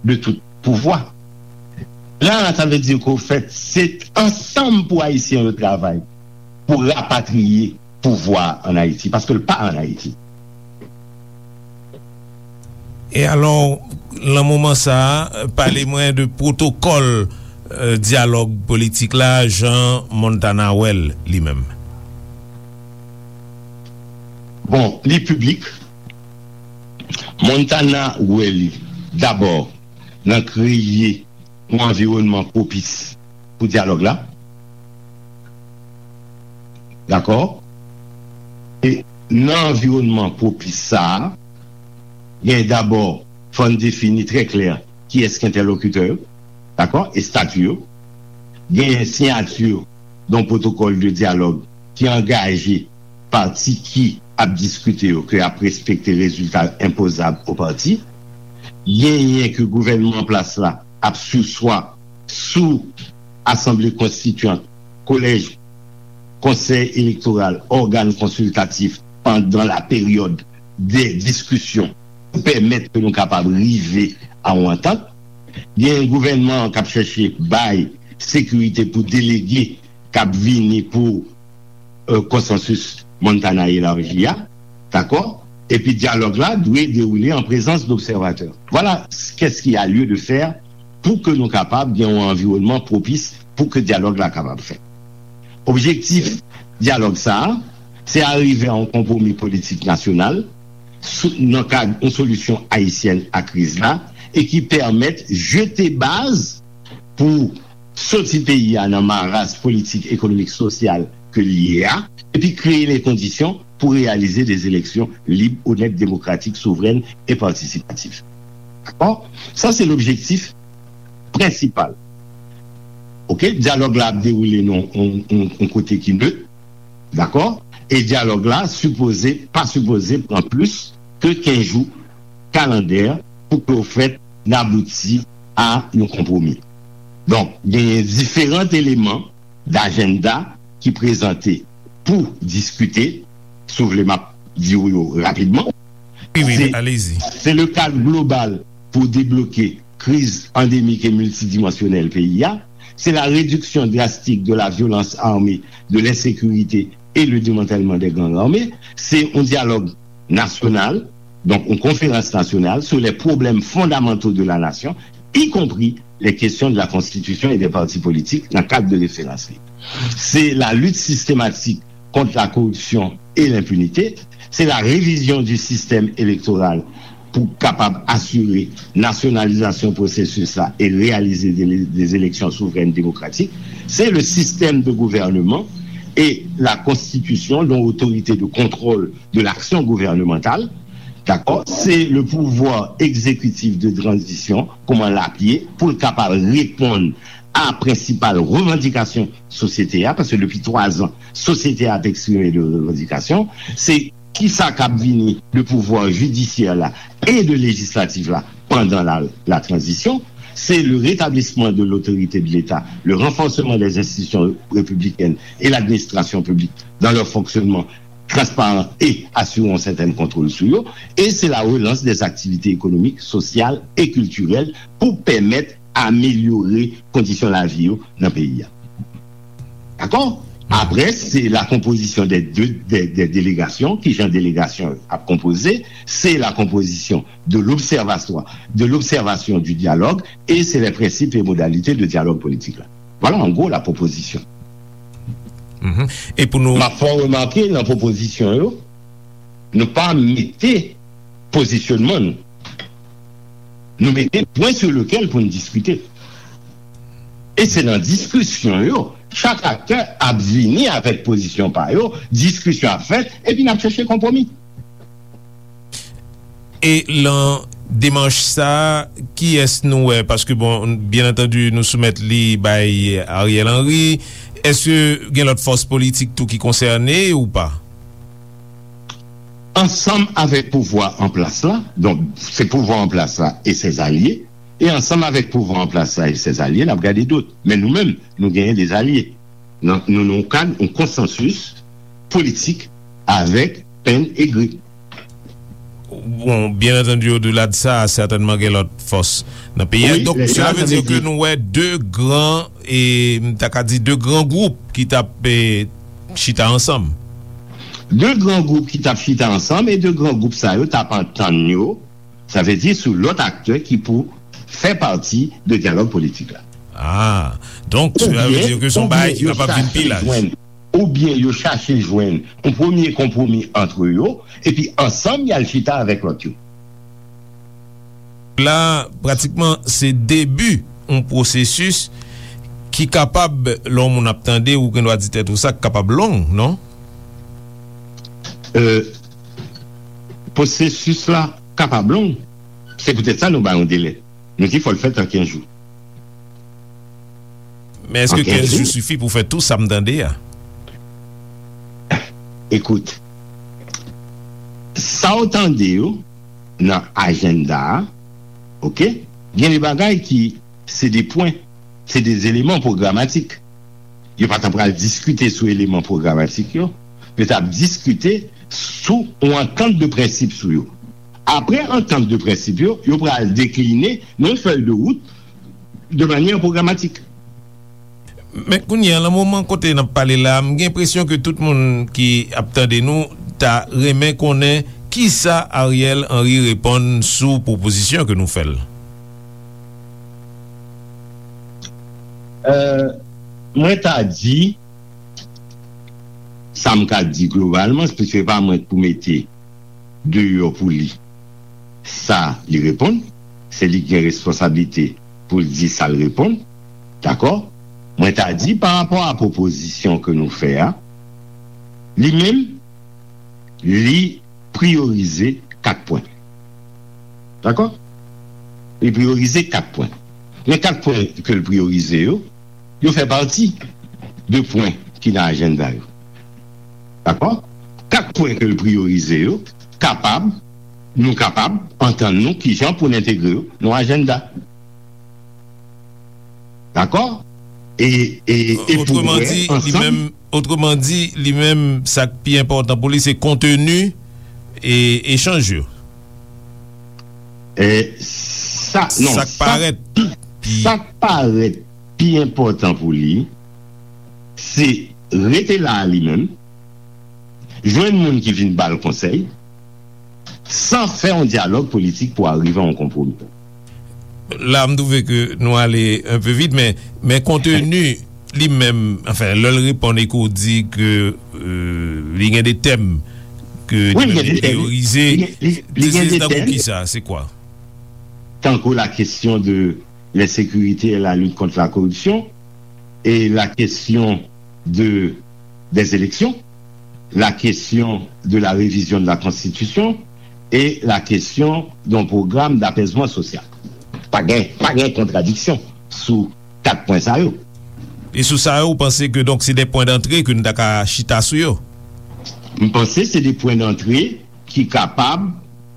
de tout pouvwa. La, sa vle di ke, ofèt, se ansanm pou Ayisyen yo travay pou rapatriye pouvwa an Ayiti, paske l pa an Ayiti. E alò, nan moman sa a, pale mwen de pwotokòl, euh, dyalòg politik la, jan Montana wè l li menm. Bon, li piblik. Montana wè li dabò nan kreye yon anviwònman pwopis pou dyalòg la. Dakò? E nan anviwònman pwopis sa a, gen dabò, fò n defini trè klè kiyès ki entèlokitè yo, dakò? E stati yo. Gen siyati yon pwotokòl de dyalòg ki angaje pati ki ap diskite yo ke y ap respekte rezilta enpozab o pati. Genyen ke gouvènman an plas la ap siswa sou asanble konstityan, kolèj, konsèy elektoral, ògàn konsiltatif pandan la peryòd de diskisyon pou pèmèt ke nou kapab rive a yon antant. Gen gouvènman an k ap chèche bay sekirite pou delege k ap vini pou, euh, konsansis Montana elaji a, dakò? Epi dyalòg la dwe dewoule an prezans dobsèvatè. Vwala qu'est-ce qu'il y a lieu de faire pou ke nou kapab gen yon anviwònman pwopis pou ke dyalòg la kapab fèt. Objektif dyalòg sa a, se arive a yon konpwomi politik nasyonal sou, nan kad yon solisyon ayisyèn a kriz la e ki pèmèt jete baz pou soti peyi a nan maras politik, ekonomik, sosyal ke l ye a, epi kreye les conditions pour réaliser des élections libres, honnêtes, démocratiques, souveraines et participatives. Dakò? Sa se lobjektif prensipal. Oke, dyalòg la ap dewoule nan yon, yon, yon kote ki nèt, dakò? E dyalòg la sipoze, pa sipoze pran plis ke kenz jou kalandè pou ke w fèt n abouti a yon konpwomi. Donk, genyen diferan eleman dajenda ki prezante pou diskite, si w vle m ap di w yo rapidman. Wi, wi, se, alezi. Se le cadre global pour débloquer crise endémique et multidimensionnelle peyi a, se la réduction drastique de la violence armée, de l'insécurité et le démantèlement des gangs armés, se yon dyalòg nasyonal, donk yon konferans nasyonal sur les problèmes fondamentaux de la nation, y compris les questions de la constitution et des partis politiques dans le cadre de référence. C'est la lutte systématique contre la corruption et l'impunité, c'est la révision du système électoral pou kapab asire nasyonalizasyon pwosesis la e reyalize de, des élections souveraines démocratiques, c'est le système de gouvernement et la constitution d'une autorité de contrôle de l'action gouvernementale, dakò, se le pouvoir exécutif de transition, kòman l ap ye, pou l kapab reponn a prensipal revandikasyon sosyete a, paske depi twa zan, sosyete a ap eksprime de revandikasyon, se kisa k ap vini de pouvwa jidisyè la e de lejislatif la pandan la, la transition, c'est le rétablissement de l'autorité de l'État, le renforcement des institutions républicaines et l'administration publique dans leur fonctionnement transparent et assurer un certain contrôle sur eux, et c'est la relance des activités économiques, sociales et culturelles pour permettre améliorer conditions de la vie dans le pays. D'accord? Après, c'est la composition des deux des, des délégations, qui j'ai délégation à composer, c'est la composition de l'observatoire, de l'observation du dialogue, et c'est les principes et modalités de dialogue politique. Là. Voilà en gros la proposition. Mm -hmm. E pou nou. M ap fè w remake nan pwopozisyon yo, nou pa mete pozisyonman nou. Nou mete pwen sou lekel pou n diskite. E se nan diskisyon yo, chak aktè ap vini avèk pozisyon pa yo, diskisyon ap fèt, epi n ap chèche konpwomi. E lan demach sa, kiyès nou wè? Paske, bon, byen antandi, nou soumèt li bay Ariel Henry. Èske gen lòt fòs politik tou ki konsène ou pa? Ansanm avèk pouvwa an plas la, donk, se pouvwa an plas la e ses alye, e ansanm avèk pouvwa an plas la e ses alye, n ap gade dòt. Men nou menm, nou genyen de alye. Nou nan yon kad, yon konsansis politik avèk Penn e Gri. Bon, byen antandi, odela de sa, sètènman gen lòt fòs nan peyi a. Donk, sela vle di ke nou wè de gran, e m ta ka di de gran gwoup ki t ap chita ansanm. De gran gwoup ki t ap chita ansanm, e de gran gwoup sa yo t ap antann yo, sa vle di sou lòt aktè ki pou fè pati de dyalòg politik la. Ah, donk, sela vle di ke se yon bagay ki kapab vin pi laj. Oubyen yo chache jwenn yon premye konpwomi ant yo, epi ansanm y al chita avèk lòt yo. La, pratikman, se debi yon pwosesis ki kapab, lè yon moun ap tande, ou gen dwa di tèt ou sa, k kapab long, non? Euh, pwosesis la kapab long. Se poutèt sa nou ba yon delè. Nou di fò l fèt an kenz jou. Men èske kenz jou sifi pou fè tou sa m tande a? Ekout, sa w tande yo nan ajanda a, oke, gen de bagay ki se de pwen, se de eleman pwogramatik. Yo pa t ap pral diskite sou eleman pwogramatik yo, yo t ap diskite sou yon antant de prensip sou yo. Apre antant de prensip yo, yo pral dekline yon fèy de wout de manyè pwogramatik. Men kounye a, nan moman kote n ap pale la, m gen enpresyon ke tout moun ki ap tande nou ta renmen konnen kisa Ariel Henry reponn sou pwopozisyon ke nou fè l. Euh, mwen ta di, sa m ka di globalman, se pa mwen k pou mete deyò pou li sa li reponn, se li ki gen responsablite pou l di sa l reponn, dakò? Mwen ta di, pa rapò a pwopozisyon ke nou fè a, Li menm, li priyorize kat pwen. Dakò? Li priyorize kat pwen. Men kat pwen ke l priyorize yo, yo fè pati de pwen ki nan ajanda yo. Dakò? Kat pwen ke l priyorize yo, kapab, nou kapab antann nou kijan pou n entegre yo nan ajanda. Dakò? E, e, e pou wè ansanm. Otreman di, li menm, otreman di, li menm, sa k pi enpòtan pou li, se konteni e echanj yo. E sa, non, sa k parèt pi, sa k parèt pi enpòtan pou li, se rete la a li menm, jwenn moun ki vin ba l konsèy, san fè yon dyalòg politik pou arive a yon konpwomi. La, m twouve ke nou ale un peu vit, men, men konteni li menm, anfen, lè l reponn e ke w di ke, euh, li gen de tèm ke li menm li priyorize, se, se tankou kisa, se kwa? Tankou la question de l'insécurité et la lutte contre la corruption, et la question de, des élections, la question de la révision de la Constitution et la question d'un programme d'apaisement social. Pa gen, pa gen kontradiksyon sou kat pwen sa yo. E sou sa yo, ou panse ke donk se de pwen dantre ke nou ta ka chita sou yo? M panse se de pwen dantre ki kapab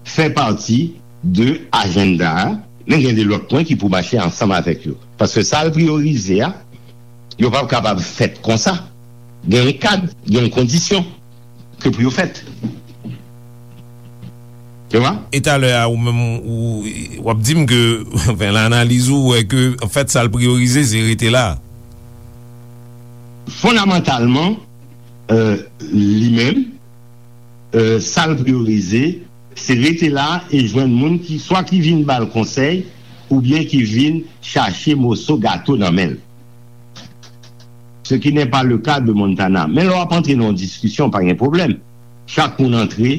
fè pati de ajanda a, men gen de lòt pwen ki pou mache ansanm avèk yo. Paske sa l priyorize a, yo p ap kapab fèt konsa. Gen yon kad, gen yon kondisyon ke pou yo fèt. Ou wè? E talè a, ou menm, ou, w ap di m ke, anfen, nan analiz ou, ou wè ke, anfèt, sa l priyorize, se rete la. Fondamantalman, euh, li menm, euh, sa l priyorize, se rete la e jwenn moun ki, swa ki vin ba l konsèy, oubyen ki vin chache moso gato nan men l. Ce qui n'est pas le cas de Montana. Men lè w ap antre nan yon diskisyon, pa gen pwoblèm. Chak moun antre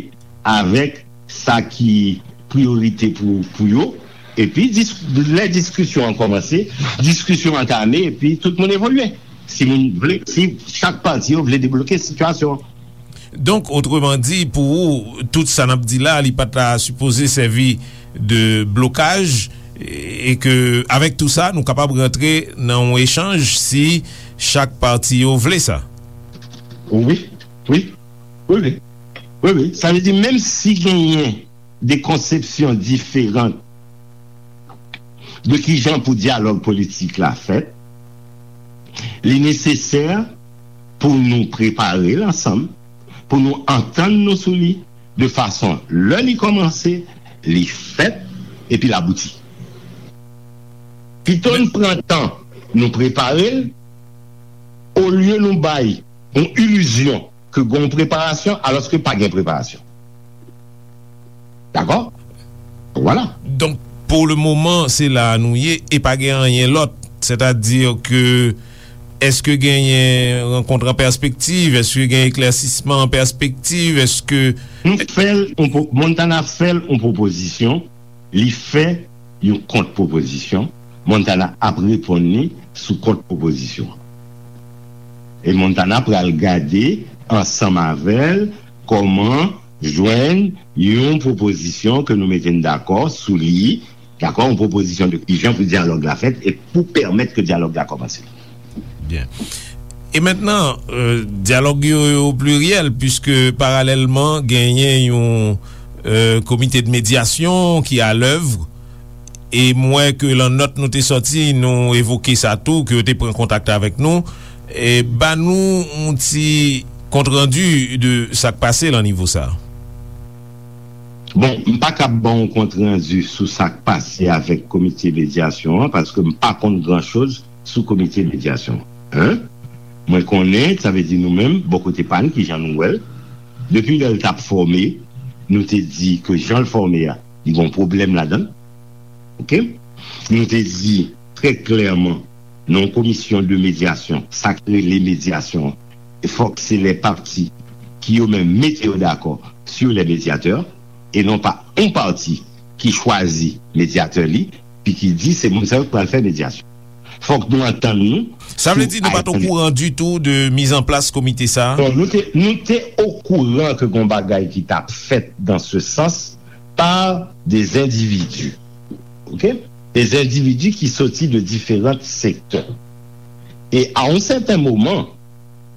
avèk sa ki priyorite pou, pou yo. Epi, dis-, lè diskisyon an kòmanse, diskisyon antame, epi tout moun evolye. Si moun vle, si chak pati yo vle debloke sitiyasyon an. Donk, otreman di, pou ou, tout sa n ap di la, li pa ta sipoze sèvi de blokaj, e ke, avèk tou sa, nou kapab rantre nan yon echanj si chak pati yo vle sa. Wi, wi, wi, wi. Wi, wi. Sa vle di, menm si genyen de konsepsyon diferan de kijan pou dyalòg politik la fèt, li nesesè pou nou prepare l ansanm, pou nou antann nou sou li, de fason lè li kòmanse, li fèt, epi l abouti. Pito n pran tan nou prepare l, olye nou bay yon ilizyon ke gen yon preparasyon, alòske pa gen preparasyon. Dakò? Vwala. Donk, pou le moman, se la a nou ye e pa gen anyen lòt. Sètadi ke, èske genyen rankont an pèspektiv? Èske gen eklèsisman an pèspektiv? Èske Nou fè l, on po-, Montana fè l yon pwopozisyon, li fè yon kont-pwopozisyon, Montana ap reponn li sou kont-pwopozisyon. E Montana pral gade ansanm avè l kòman jwenn yon pwopozisyon ke nou mete n dakò sou li, dakò, yon pwopozisyon de kijan pou dyalòg la fèt e pou pèmèt ke dyalòg la kòmanse. Byen. E mentnan, euh, dyalòg yo, yo pliryèl, piske paralèlman genyen yon, euh, komite de medyasyon ki alèv. E m wè ke lan nòt nou te sòti, nou evoke sa tou, ke yo te pran kontak avèk nou. E ba nou yon ti kontrandi de sa k pase lan nivo sa. Bon, m pa kab ba w yon kontrandi sou sa k pase avèk komite medyasyon an, paske m pa konn gran choz sou komite medyasyon an. Mwen konnen, sa vle di nou menm, bò kote pa n, kijan nou wè l, depi lè l t ap fòme, nou te di ke jan l fòme a, li gen yon pwoblèm ladan l. Oke? Nou te di trè klèman, nan yon komisyon de medyasyon, sa k rele medyasyon an, e fòk se lè pati ki yo menm mete yo dakò sur les médiateurs, e non pa yon pati ki chwazi medyatè li, pi ki di se moun sa yo k pral fè medyasyon. Fòk nou antann nou. Sa vle di nou pa t okouran ditou de mizanplas komite sa a? Bon, nou te, nou te okouran ke gon bagay ki t ap fèt dans ce sens par des individus. OK? Des individus ki soti de diferan sektè. E a yon sèten moman,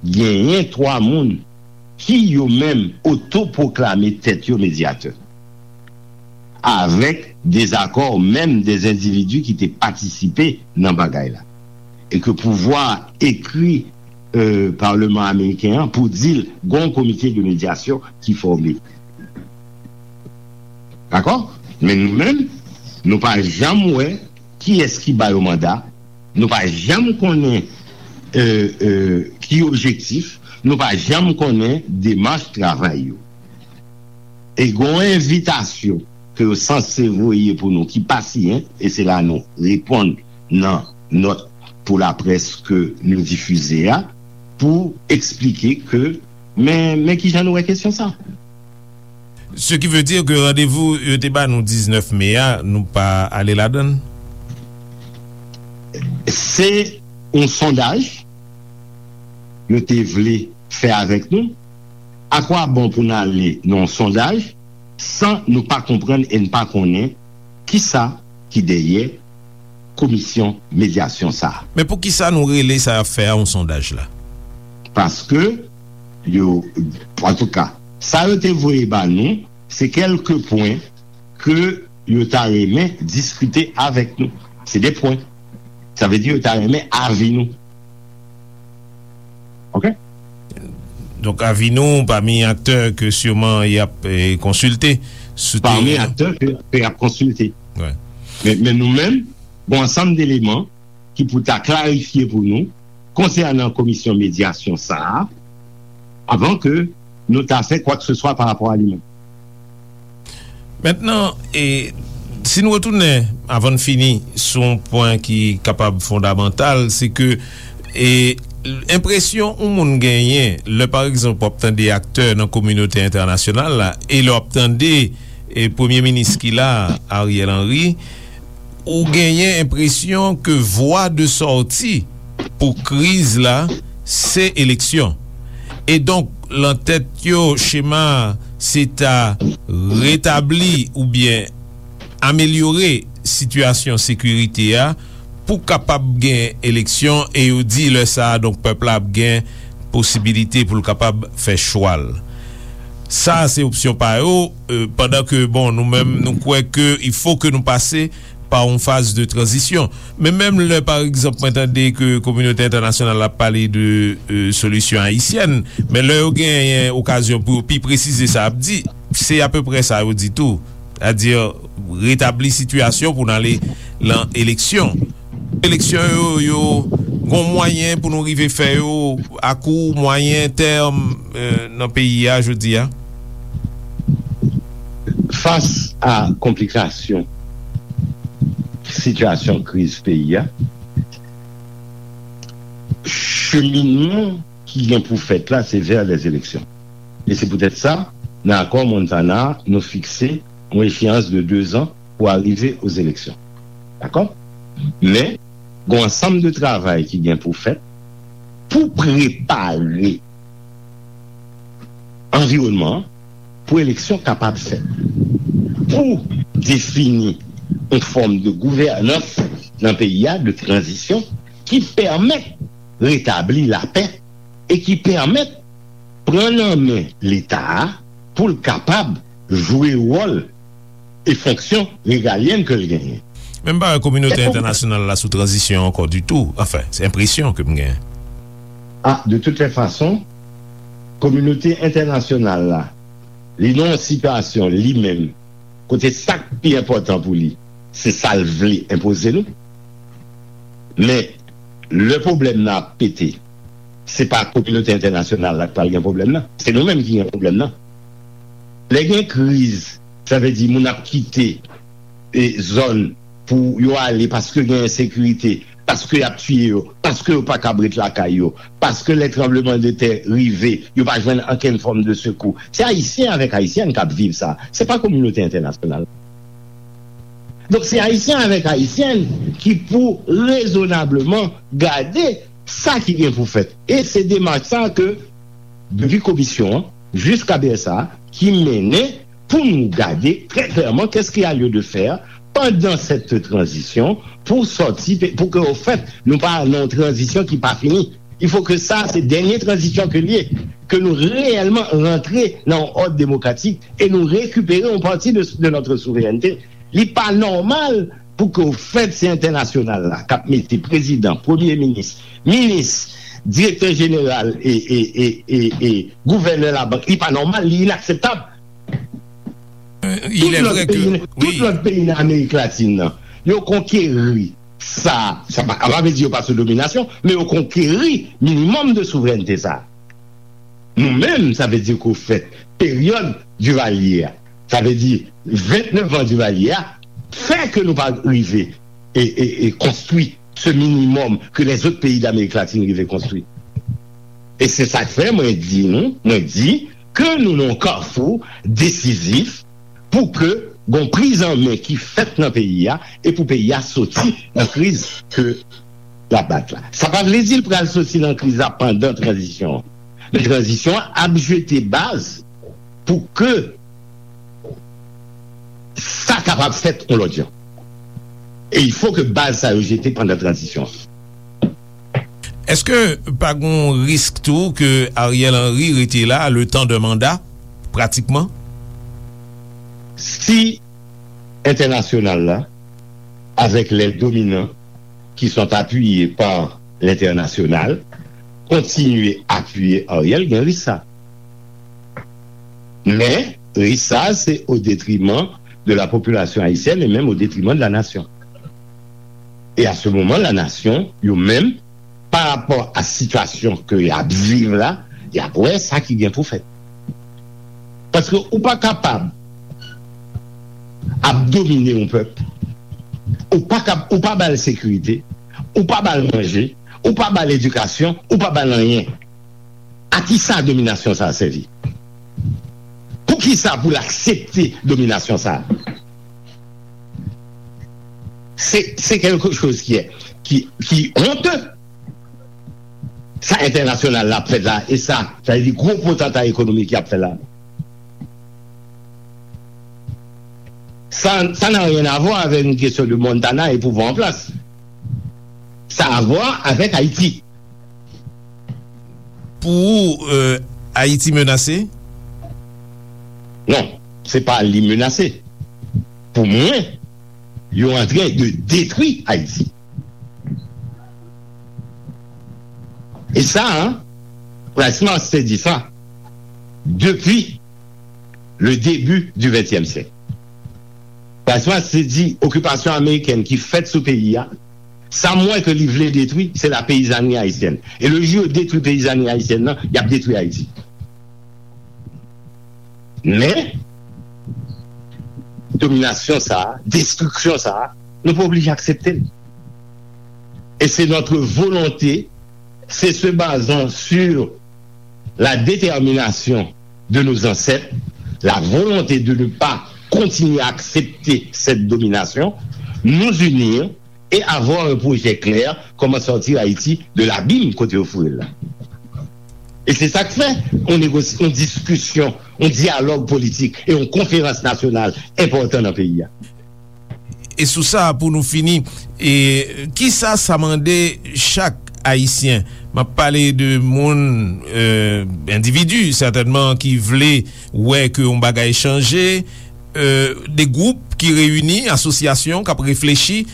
genyen twa moun ki yo menm otopwoklame tèt yo medyatè, avèk dezakò menm de endividi ki te patisipe nan bagay la, e ke pouvwa ekri, euh, Palman Ameriken an pou di l gon komite de medyasyon ki fòme. Dakò? Men nou menm, nou pa janm wè kiyès ki ba yo manda, nou pa janm konnen, euh, euh, ki objektif, nou pa janm konnen demach travay yo. E gon envitasyon ke yo sanse voye pou nou ki pa siyen, e se la nou reponn nan nòt pou laprès ke nou difize a, pou eksplike ke, men, men kijan nou wè kesyon sa. Ce qui veut dire que randevou yo te ba nou diznèf me a, nou pa ale ladan l? Se yon sondaj yo te vle fè avèk nou. Akwabon pou n ale nan yon sondaj san nou pa konprann e n pa konnen kisa ki dèyè komisyon medyasyon sa a. Men poukisa nou rele sa y ap fè a yon sondaj la? Paske yo, antouka, sa yo te voye ba nou, se kèlke pwen ke yo ta renmen diskite avèk nou. Se de pwen. Sa vle di yo ta renmen avi nou. OK? Donk, avi nou pami aktè ke siman y ap, eh, konsilte sou teren an. Pami aktè ke, ke y ap konsilte. Wi. Men, men nou menm, gon ansanm deleman ki pou ta klarifye pou nou konsènan komisyon medyasyon sa a, avan ke nou ta fè kwakseswa pa rapò a li menm. Mentnan, e, si n retounen, avan n fini, sou yon pwen ki kapab fondamantal, se ke, e, enpresyon yon moun genyen, lè, pa egzanp, w ap tande aktè nan kominote entènasyonal la, e lè w ap tande, e, premye minis ki la, Ariel Henry, ou genyen enpresyon ke vwa de sòti pou kriz la, se eleksyon. E donk, lan tèt yo, chema a, se ta retabli oubyen amelyore sitiyasyon sekirite a pou kapab gen eleksyon, e yo di lè sa a, donk, pèp la ap gen posibilite pou l kapab fè chwa l. Sa a se opsyon pa yo, e, pandan ke, bon, nou menm, nou kwè ke il faut que nou pase pa yon faz de tranzisyon. Men menm lè, pa egzanp, mwen tande ke kominote entènasyonal ap pale de, e, solisyon ayisyèn, men lè yo genyen okazyon pou yo pi presize sa y ap di, se apeprè sa yo di tou. Sètadi, retabli sitiyasyon pou n ale lan eleksyon. Eleksyon yo, yo gon mwayen pou nou rive fè yo a kou, mwayen tèm, e, nan peyi a jodi a? Fas a konplikasyon sitiyasyon kriz peyi a, cheminman ki gen pou fèt la, se vè lèzeleksyon. E se poutèt sa, nan akò Montana, nou fikse yon echeyans de dezan pou arive ozeleksyon. Dakò? Men, gen yon ansanm de travay ki gen pou fèt pou prepare anviwònman an pou eleksyon kapab fèt, pou defini yon fòm de gouvènans nan peyi a, de tranzisyon, ki pèmèt retabli lapè e ki pèmèt pran nan men Leta a pou l kapab jwe wòl e fonksyon regalyèn ke l genyen. Men m pa wè kominote entènasyonal la sou tranzisyon ankò ditou. Anfen, se enpresyon ke m genyen. A, de toutes les façons, kominote entènasyonal la, li nan yon sitiyasyon li menm, kote sa k pi enpòtan pou li, se sa l vle enpoze nou. Men, lè pwoblèm nan ap pete, se pa kominote entènasyonal la k pral gen pwoblèm nan. Se nou menm ki gen pwoblèm nan. Lè gen kriz, sa vle di moun ap kite, e, zòn pou yo ale paske gen ensekirite, paske y ap tiye yo, paske yo pa kab ret lakay yo, paske lè tranblemanntè rive, yo pa jwenn okenn fòm de sekou. Se Ayisyen avèk Ayisyèn k ap viv sa. Se pa kominote entènasyonal. Donk, se Ayisyen avèk Ayisyèn ki pou rezonableman gade sa ki gen pou fèt. E se demach sa ke, depi komisyon an, jiska B S A, ki mennen pou nou gade trè klèman qu'est-ce qu'il y a lieu de faire pendant cette transition pour sortir, pour que, au fait, nou pa nan yon tranzisyon ki pa fini. Il faut que sa, se dènye tranzisyon ke l ye, ke nou reyèlman rantre nan yon òd demokratik e nou rekipere yon pati de, de notre souveraineté. Li pa nòmal pou ke, au fait, se entènasyonal la k ap mete prezidan, premye minis, minis, direktè jeneral e, e, e, e, e gouvènè labank. Li pa nòmal, li inakseptab. Il est vrai que, tout lòt peyi nan Amerik Latin nan, yo konkeri sa, sa pa, pa vle di yo pa sou dominasyon, men yo konkeri minimòm de souverènte sa. Nou menm, sa vle di ke, au fait, peryòd Divalye a, sa vle di vennèf an Divalye a, fè ke nou pa rive e, e, e konstwi se minimòm ke lèzòt peyi Damerik Latin rive konstwi. E se sa k fè mwen di nou, mwen di ke nou nan yon kafou desizif pou ke gon priz an men ki fèt nan peyi a e pou peyi a soti nan kriz ke l ap bat la. Sa pa vle di l pral soti nan kriz la pandan tranzisyon an. Men tranzisyon an ap jete baz pou ke sa kapab fèt yon lòt jan. E il faut que baz sa yo jete pandan tranzisyon an. Èske pa gon risk tou ke Ariel Henry rete la le temps de mandat, pratikman? Si entènasyonal la, avec les dominants qui sont appuyés par l'international, kontinye apiye Ariel, gen risk sa. Men, risk sa, se au détriment de la population haïtienne et même au détriment de la nation. E a se moman, la nasyon, yo menm, pa rapò a sitiyasyon ke y ap viv la, y ap wè sa ki gen pou fèt. Paske ou pa kapab ap domine yon pèp, ou pa kap, ou pa ba l sekirite, ou pa ba l manje, ou pa ba l edikasyon, ou pa ba l anyen. A ki sa dominasyon sa a sèvi? Pou ki sa pou l aksepte dominasyon sa a? Se, se quelque chose qui est, qui, qui honte. Sa entènasyonal la ap fè la, e sa, sa vle di gwo potanta ekonomik y ap fè la. Ça, ça n'a rien à voir avec une question de Montana et pouvoir en place. Ça a à voir avec Haïti. Pou ou, euh, Ayiti menase? Non, se pa li menase. Pou mwen, yo antren de detwi Ayiti. E sa, Price Mars te di sa depi le début du vingtième siècle. Price Mars te di okipasyon amerikèn ki fèt sou peyi a, sa m wè ke li vle detwi, se la peyizanri ayisyèn. E le jou yo detwi peyizanri ayisyèn nan, y ap detwi Ayiti. Men, dominasyon sa a, destriksyon sa a, nou pa oblije aksepte l. Et c'est notre volonté, c'est se basant sur la détermination de nos ancêtres, la volonté de ne pas continuer à accepter cette domination, nous unir et avoir un projet clair, comment sortir Haïti de l'abîme kote yo foure l la. E se sa k fè yon negosi, yon diskisyon, yon dyalòg politik e yon konferans nasyonal enpòtan nan peyi a. E sou sa, pou nou fini, e kisa sa mande chak Ayisyen? M ap pale de moun, euh, endividi, sètènman, ki vle wè ke yon bagay chanje, euh, de gwoup ki reyini, asosyasyon k ap reflechi,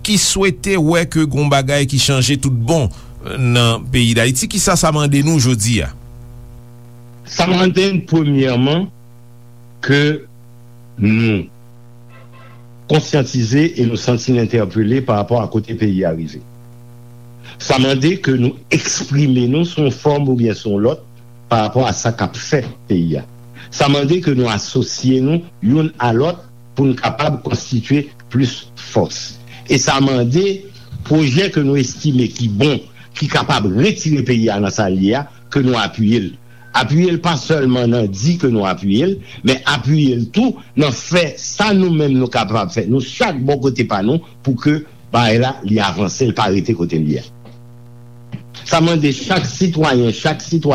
ki swete wè ke gon bagay ki chanje tout bon, euh, nan peyi Dayiti. Kisa sa mande nou jodi a? Sa mande n, premyèman, ke nou konsyantize e nou santi n entèpele pa rapò a kote peyi a rive. Sa mande ke nou eksprime nou sou yon fòm oubyen sou yon lòt pa rapò a sa k ap fè peyi a. Sa mande ke nou asosye nou youn a lòt pou n kapab konstitye plis fòs. E sa mande pwojè ke nou estime ki bon, ki kapab retire peyi a nan sa l ye a, ke nou apiye l. Apiye l pa sèlman nan di ke nou apiye l, men apiye l tou nan fè sa nou menm nou kapab fè, nou chak bò kote pa nou, pou ke bagay la, li avanse, l pa rete kote l ye a. Sa mande chak sitwayen, chak sitwayen